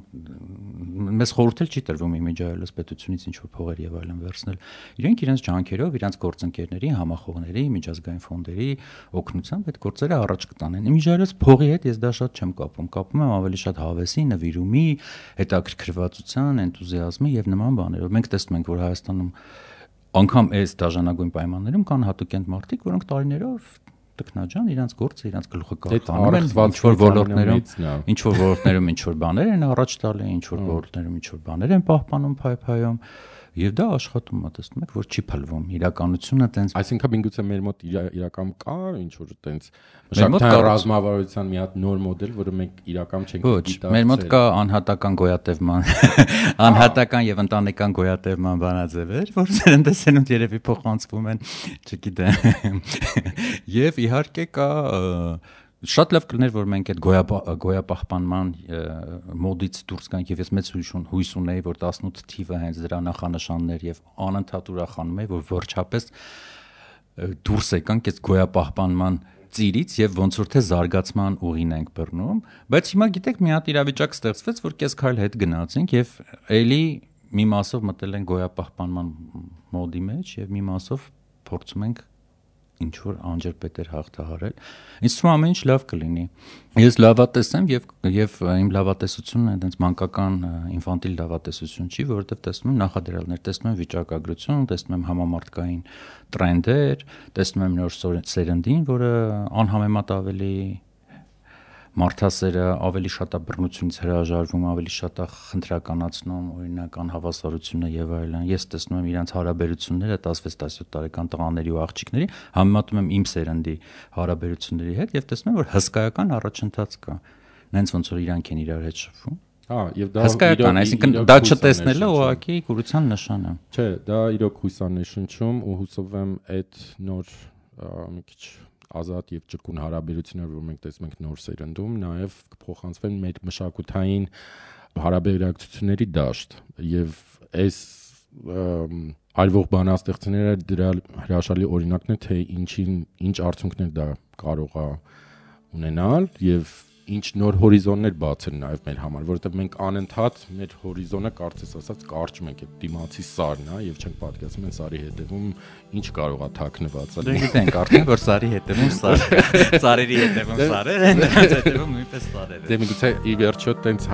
մեզ խորհուրդ էլ չի տրվում իմիջայլոց պետությունից ինչ որ փողեր եւ այլն վերցնել։ Իրենք իրենց ջանքերով, իրենց գործընկերների, համախոհների, միջազգային ֆոնդերի օգնությամբ այդ գործերը առաջ կտանեն։ Իմիջայլոց փողի հետ ես դա շատ չեմ կապում։ Կապում եմ ավելի շատ հավեսի, նվիրումի, հետաքրքրվածության, էնտուզիազմի եւ նման բաներով։ Մենք տեսնում ենք, որ Հայաստանում անգամ այս դաժանագույն պայմաններում կան հատուկենտ մարդիկ, որոնք տարիներով տքնաջան իրենց գործը, իրենց գլուխը կախանում են, ինչ որ ոլորտներում ինչ որ բաներ են առաջ տալի, ինչ որ ոլորտներում ինչ որ բաներ են պահպանում, փայփայում, եւ դա աշխատում է, տեսնում եք, որ չի փլվում իրականությունը տենց, այսինքն միգուցե մեր մոտ իրական կա ինչ որ տենց մշակութային ռազմավարության մի հատ նոր մոդել, որը մենք իրական չենք գիտակցել։ Մեր մոտ կա անհատական գոյատևման, անհատական եւ ընտանեկան գոյատևման բանաձևեր, որ սերնդեսենունդ երևի փոխանցվում են, չգիտեմ։ Եվ իհարկե կա շատ լավ կլներ, որ մենք այդ գոյապահպանման մոդից դուրս գանք եւ ես մեծ հույս ունեի, որ 18 թիվը հենց դրա նախանշաններ եւ անընդհատ ուրախանում եմ, որ վերջապես դուրս եկանք այդ գոյապահպանման ծիրից եւ ոնց որ թե զարգացման ուղին ենք բռնում, բայց հիմա գիտեք մի հատ իրավիճակ ստեղծվեց, որ կես քայլ հետ գնացինք եւ էլի մի մասով մտել են գոյապահպանման մոդի մեջ եւ մի մասով փորձում ենք ինչ որ անջրպետեր հաղթահարել։ Ինձ թվում ամեն ինչ լավ կլինի։ Ես լավատես եմ եւ իմ լավատեսությունը այնպես մանկական ինֆանտիլ լավատեսություն չի, որովհետեւ տեսնում եմ նախադրյալներ, տեսնում եմ վիճակագրություն, տեսնում եմ համամարտկային տրենդեր, տեսնում եմ նոր սերնդին, որը անհամեմատ ավելի մարդասերը ավելի շատ է բռնությունից հրաժարվում, ավելի շատ է խնդրականացնում օրինակ անհավասարությունը եւ այլն։ Ես տեսնում եմ իրենց հարաբերությունները 16-17 տարեկան տղաների ու աղջիկների, համեմատում եմ իմ սերնդի հարաբերությունների հետ եւ տեսնում եմ, որ հսկայական առաջընթաց կա։ Նենց ոնց որ իրանք են իրար հետ շփվում։ Եվ դա հսկայական, այսինքն դա չտեսնելը ուղղակի կուրության նշան է։ Չէ, դա իրոք հույսանշանչում ու հուսով եմ այդ նոր մի քիչ ազատ եւ ճկուն հարաբերություններ, որ մենք տեսնում ենք նոր սերնդում, նաեւ կփոխանցվեն մեր մշակութային հարաբերակցությունների դաշտ եւ այս արվող բանաստեղծները դրա հրաշալի օրինակն է, թե ինչ արդյունքներ դա կարող է ունենալ եւ ինչ նոր հորիզոններ բացել նաև մեր համար, որովհետև մենք անընդհատ մեր հորիզոնը կարծես ասած կարճում ենք, այդ դիմացի սարն է եւ չենք պատկերացնում այն սարի հետևում ինչ կարող է թաքնված լինել։ Դե գիտենք արդեն որ սարի հետևում սար, սարերի հետևում սարեր են, դրանց հետևում նույնպես սարեր են։ Դե միգուցե ի վերջո տենց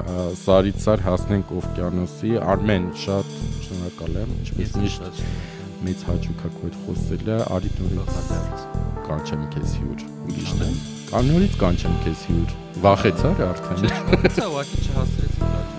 սարից սար հասնենք օվկիանոսի։ Արմեն, շատ շնորհակալ եմ, ինչպես միշտ մեծ հաճույք է քո հետ խոսելը, արի նորից կանչեմ քեզ հյուր։ Ուրիշն է։ Նորից կանչեմ քեզ հյուր։ Վախեցար արդեն։ Չէ, ուղղակի չհասցրեցի։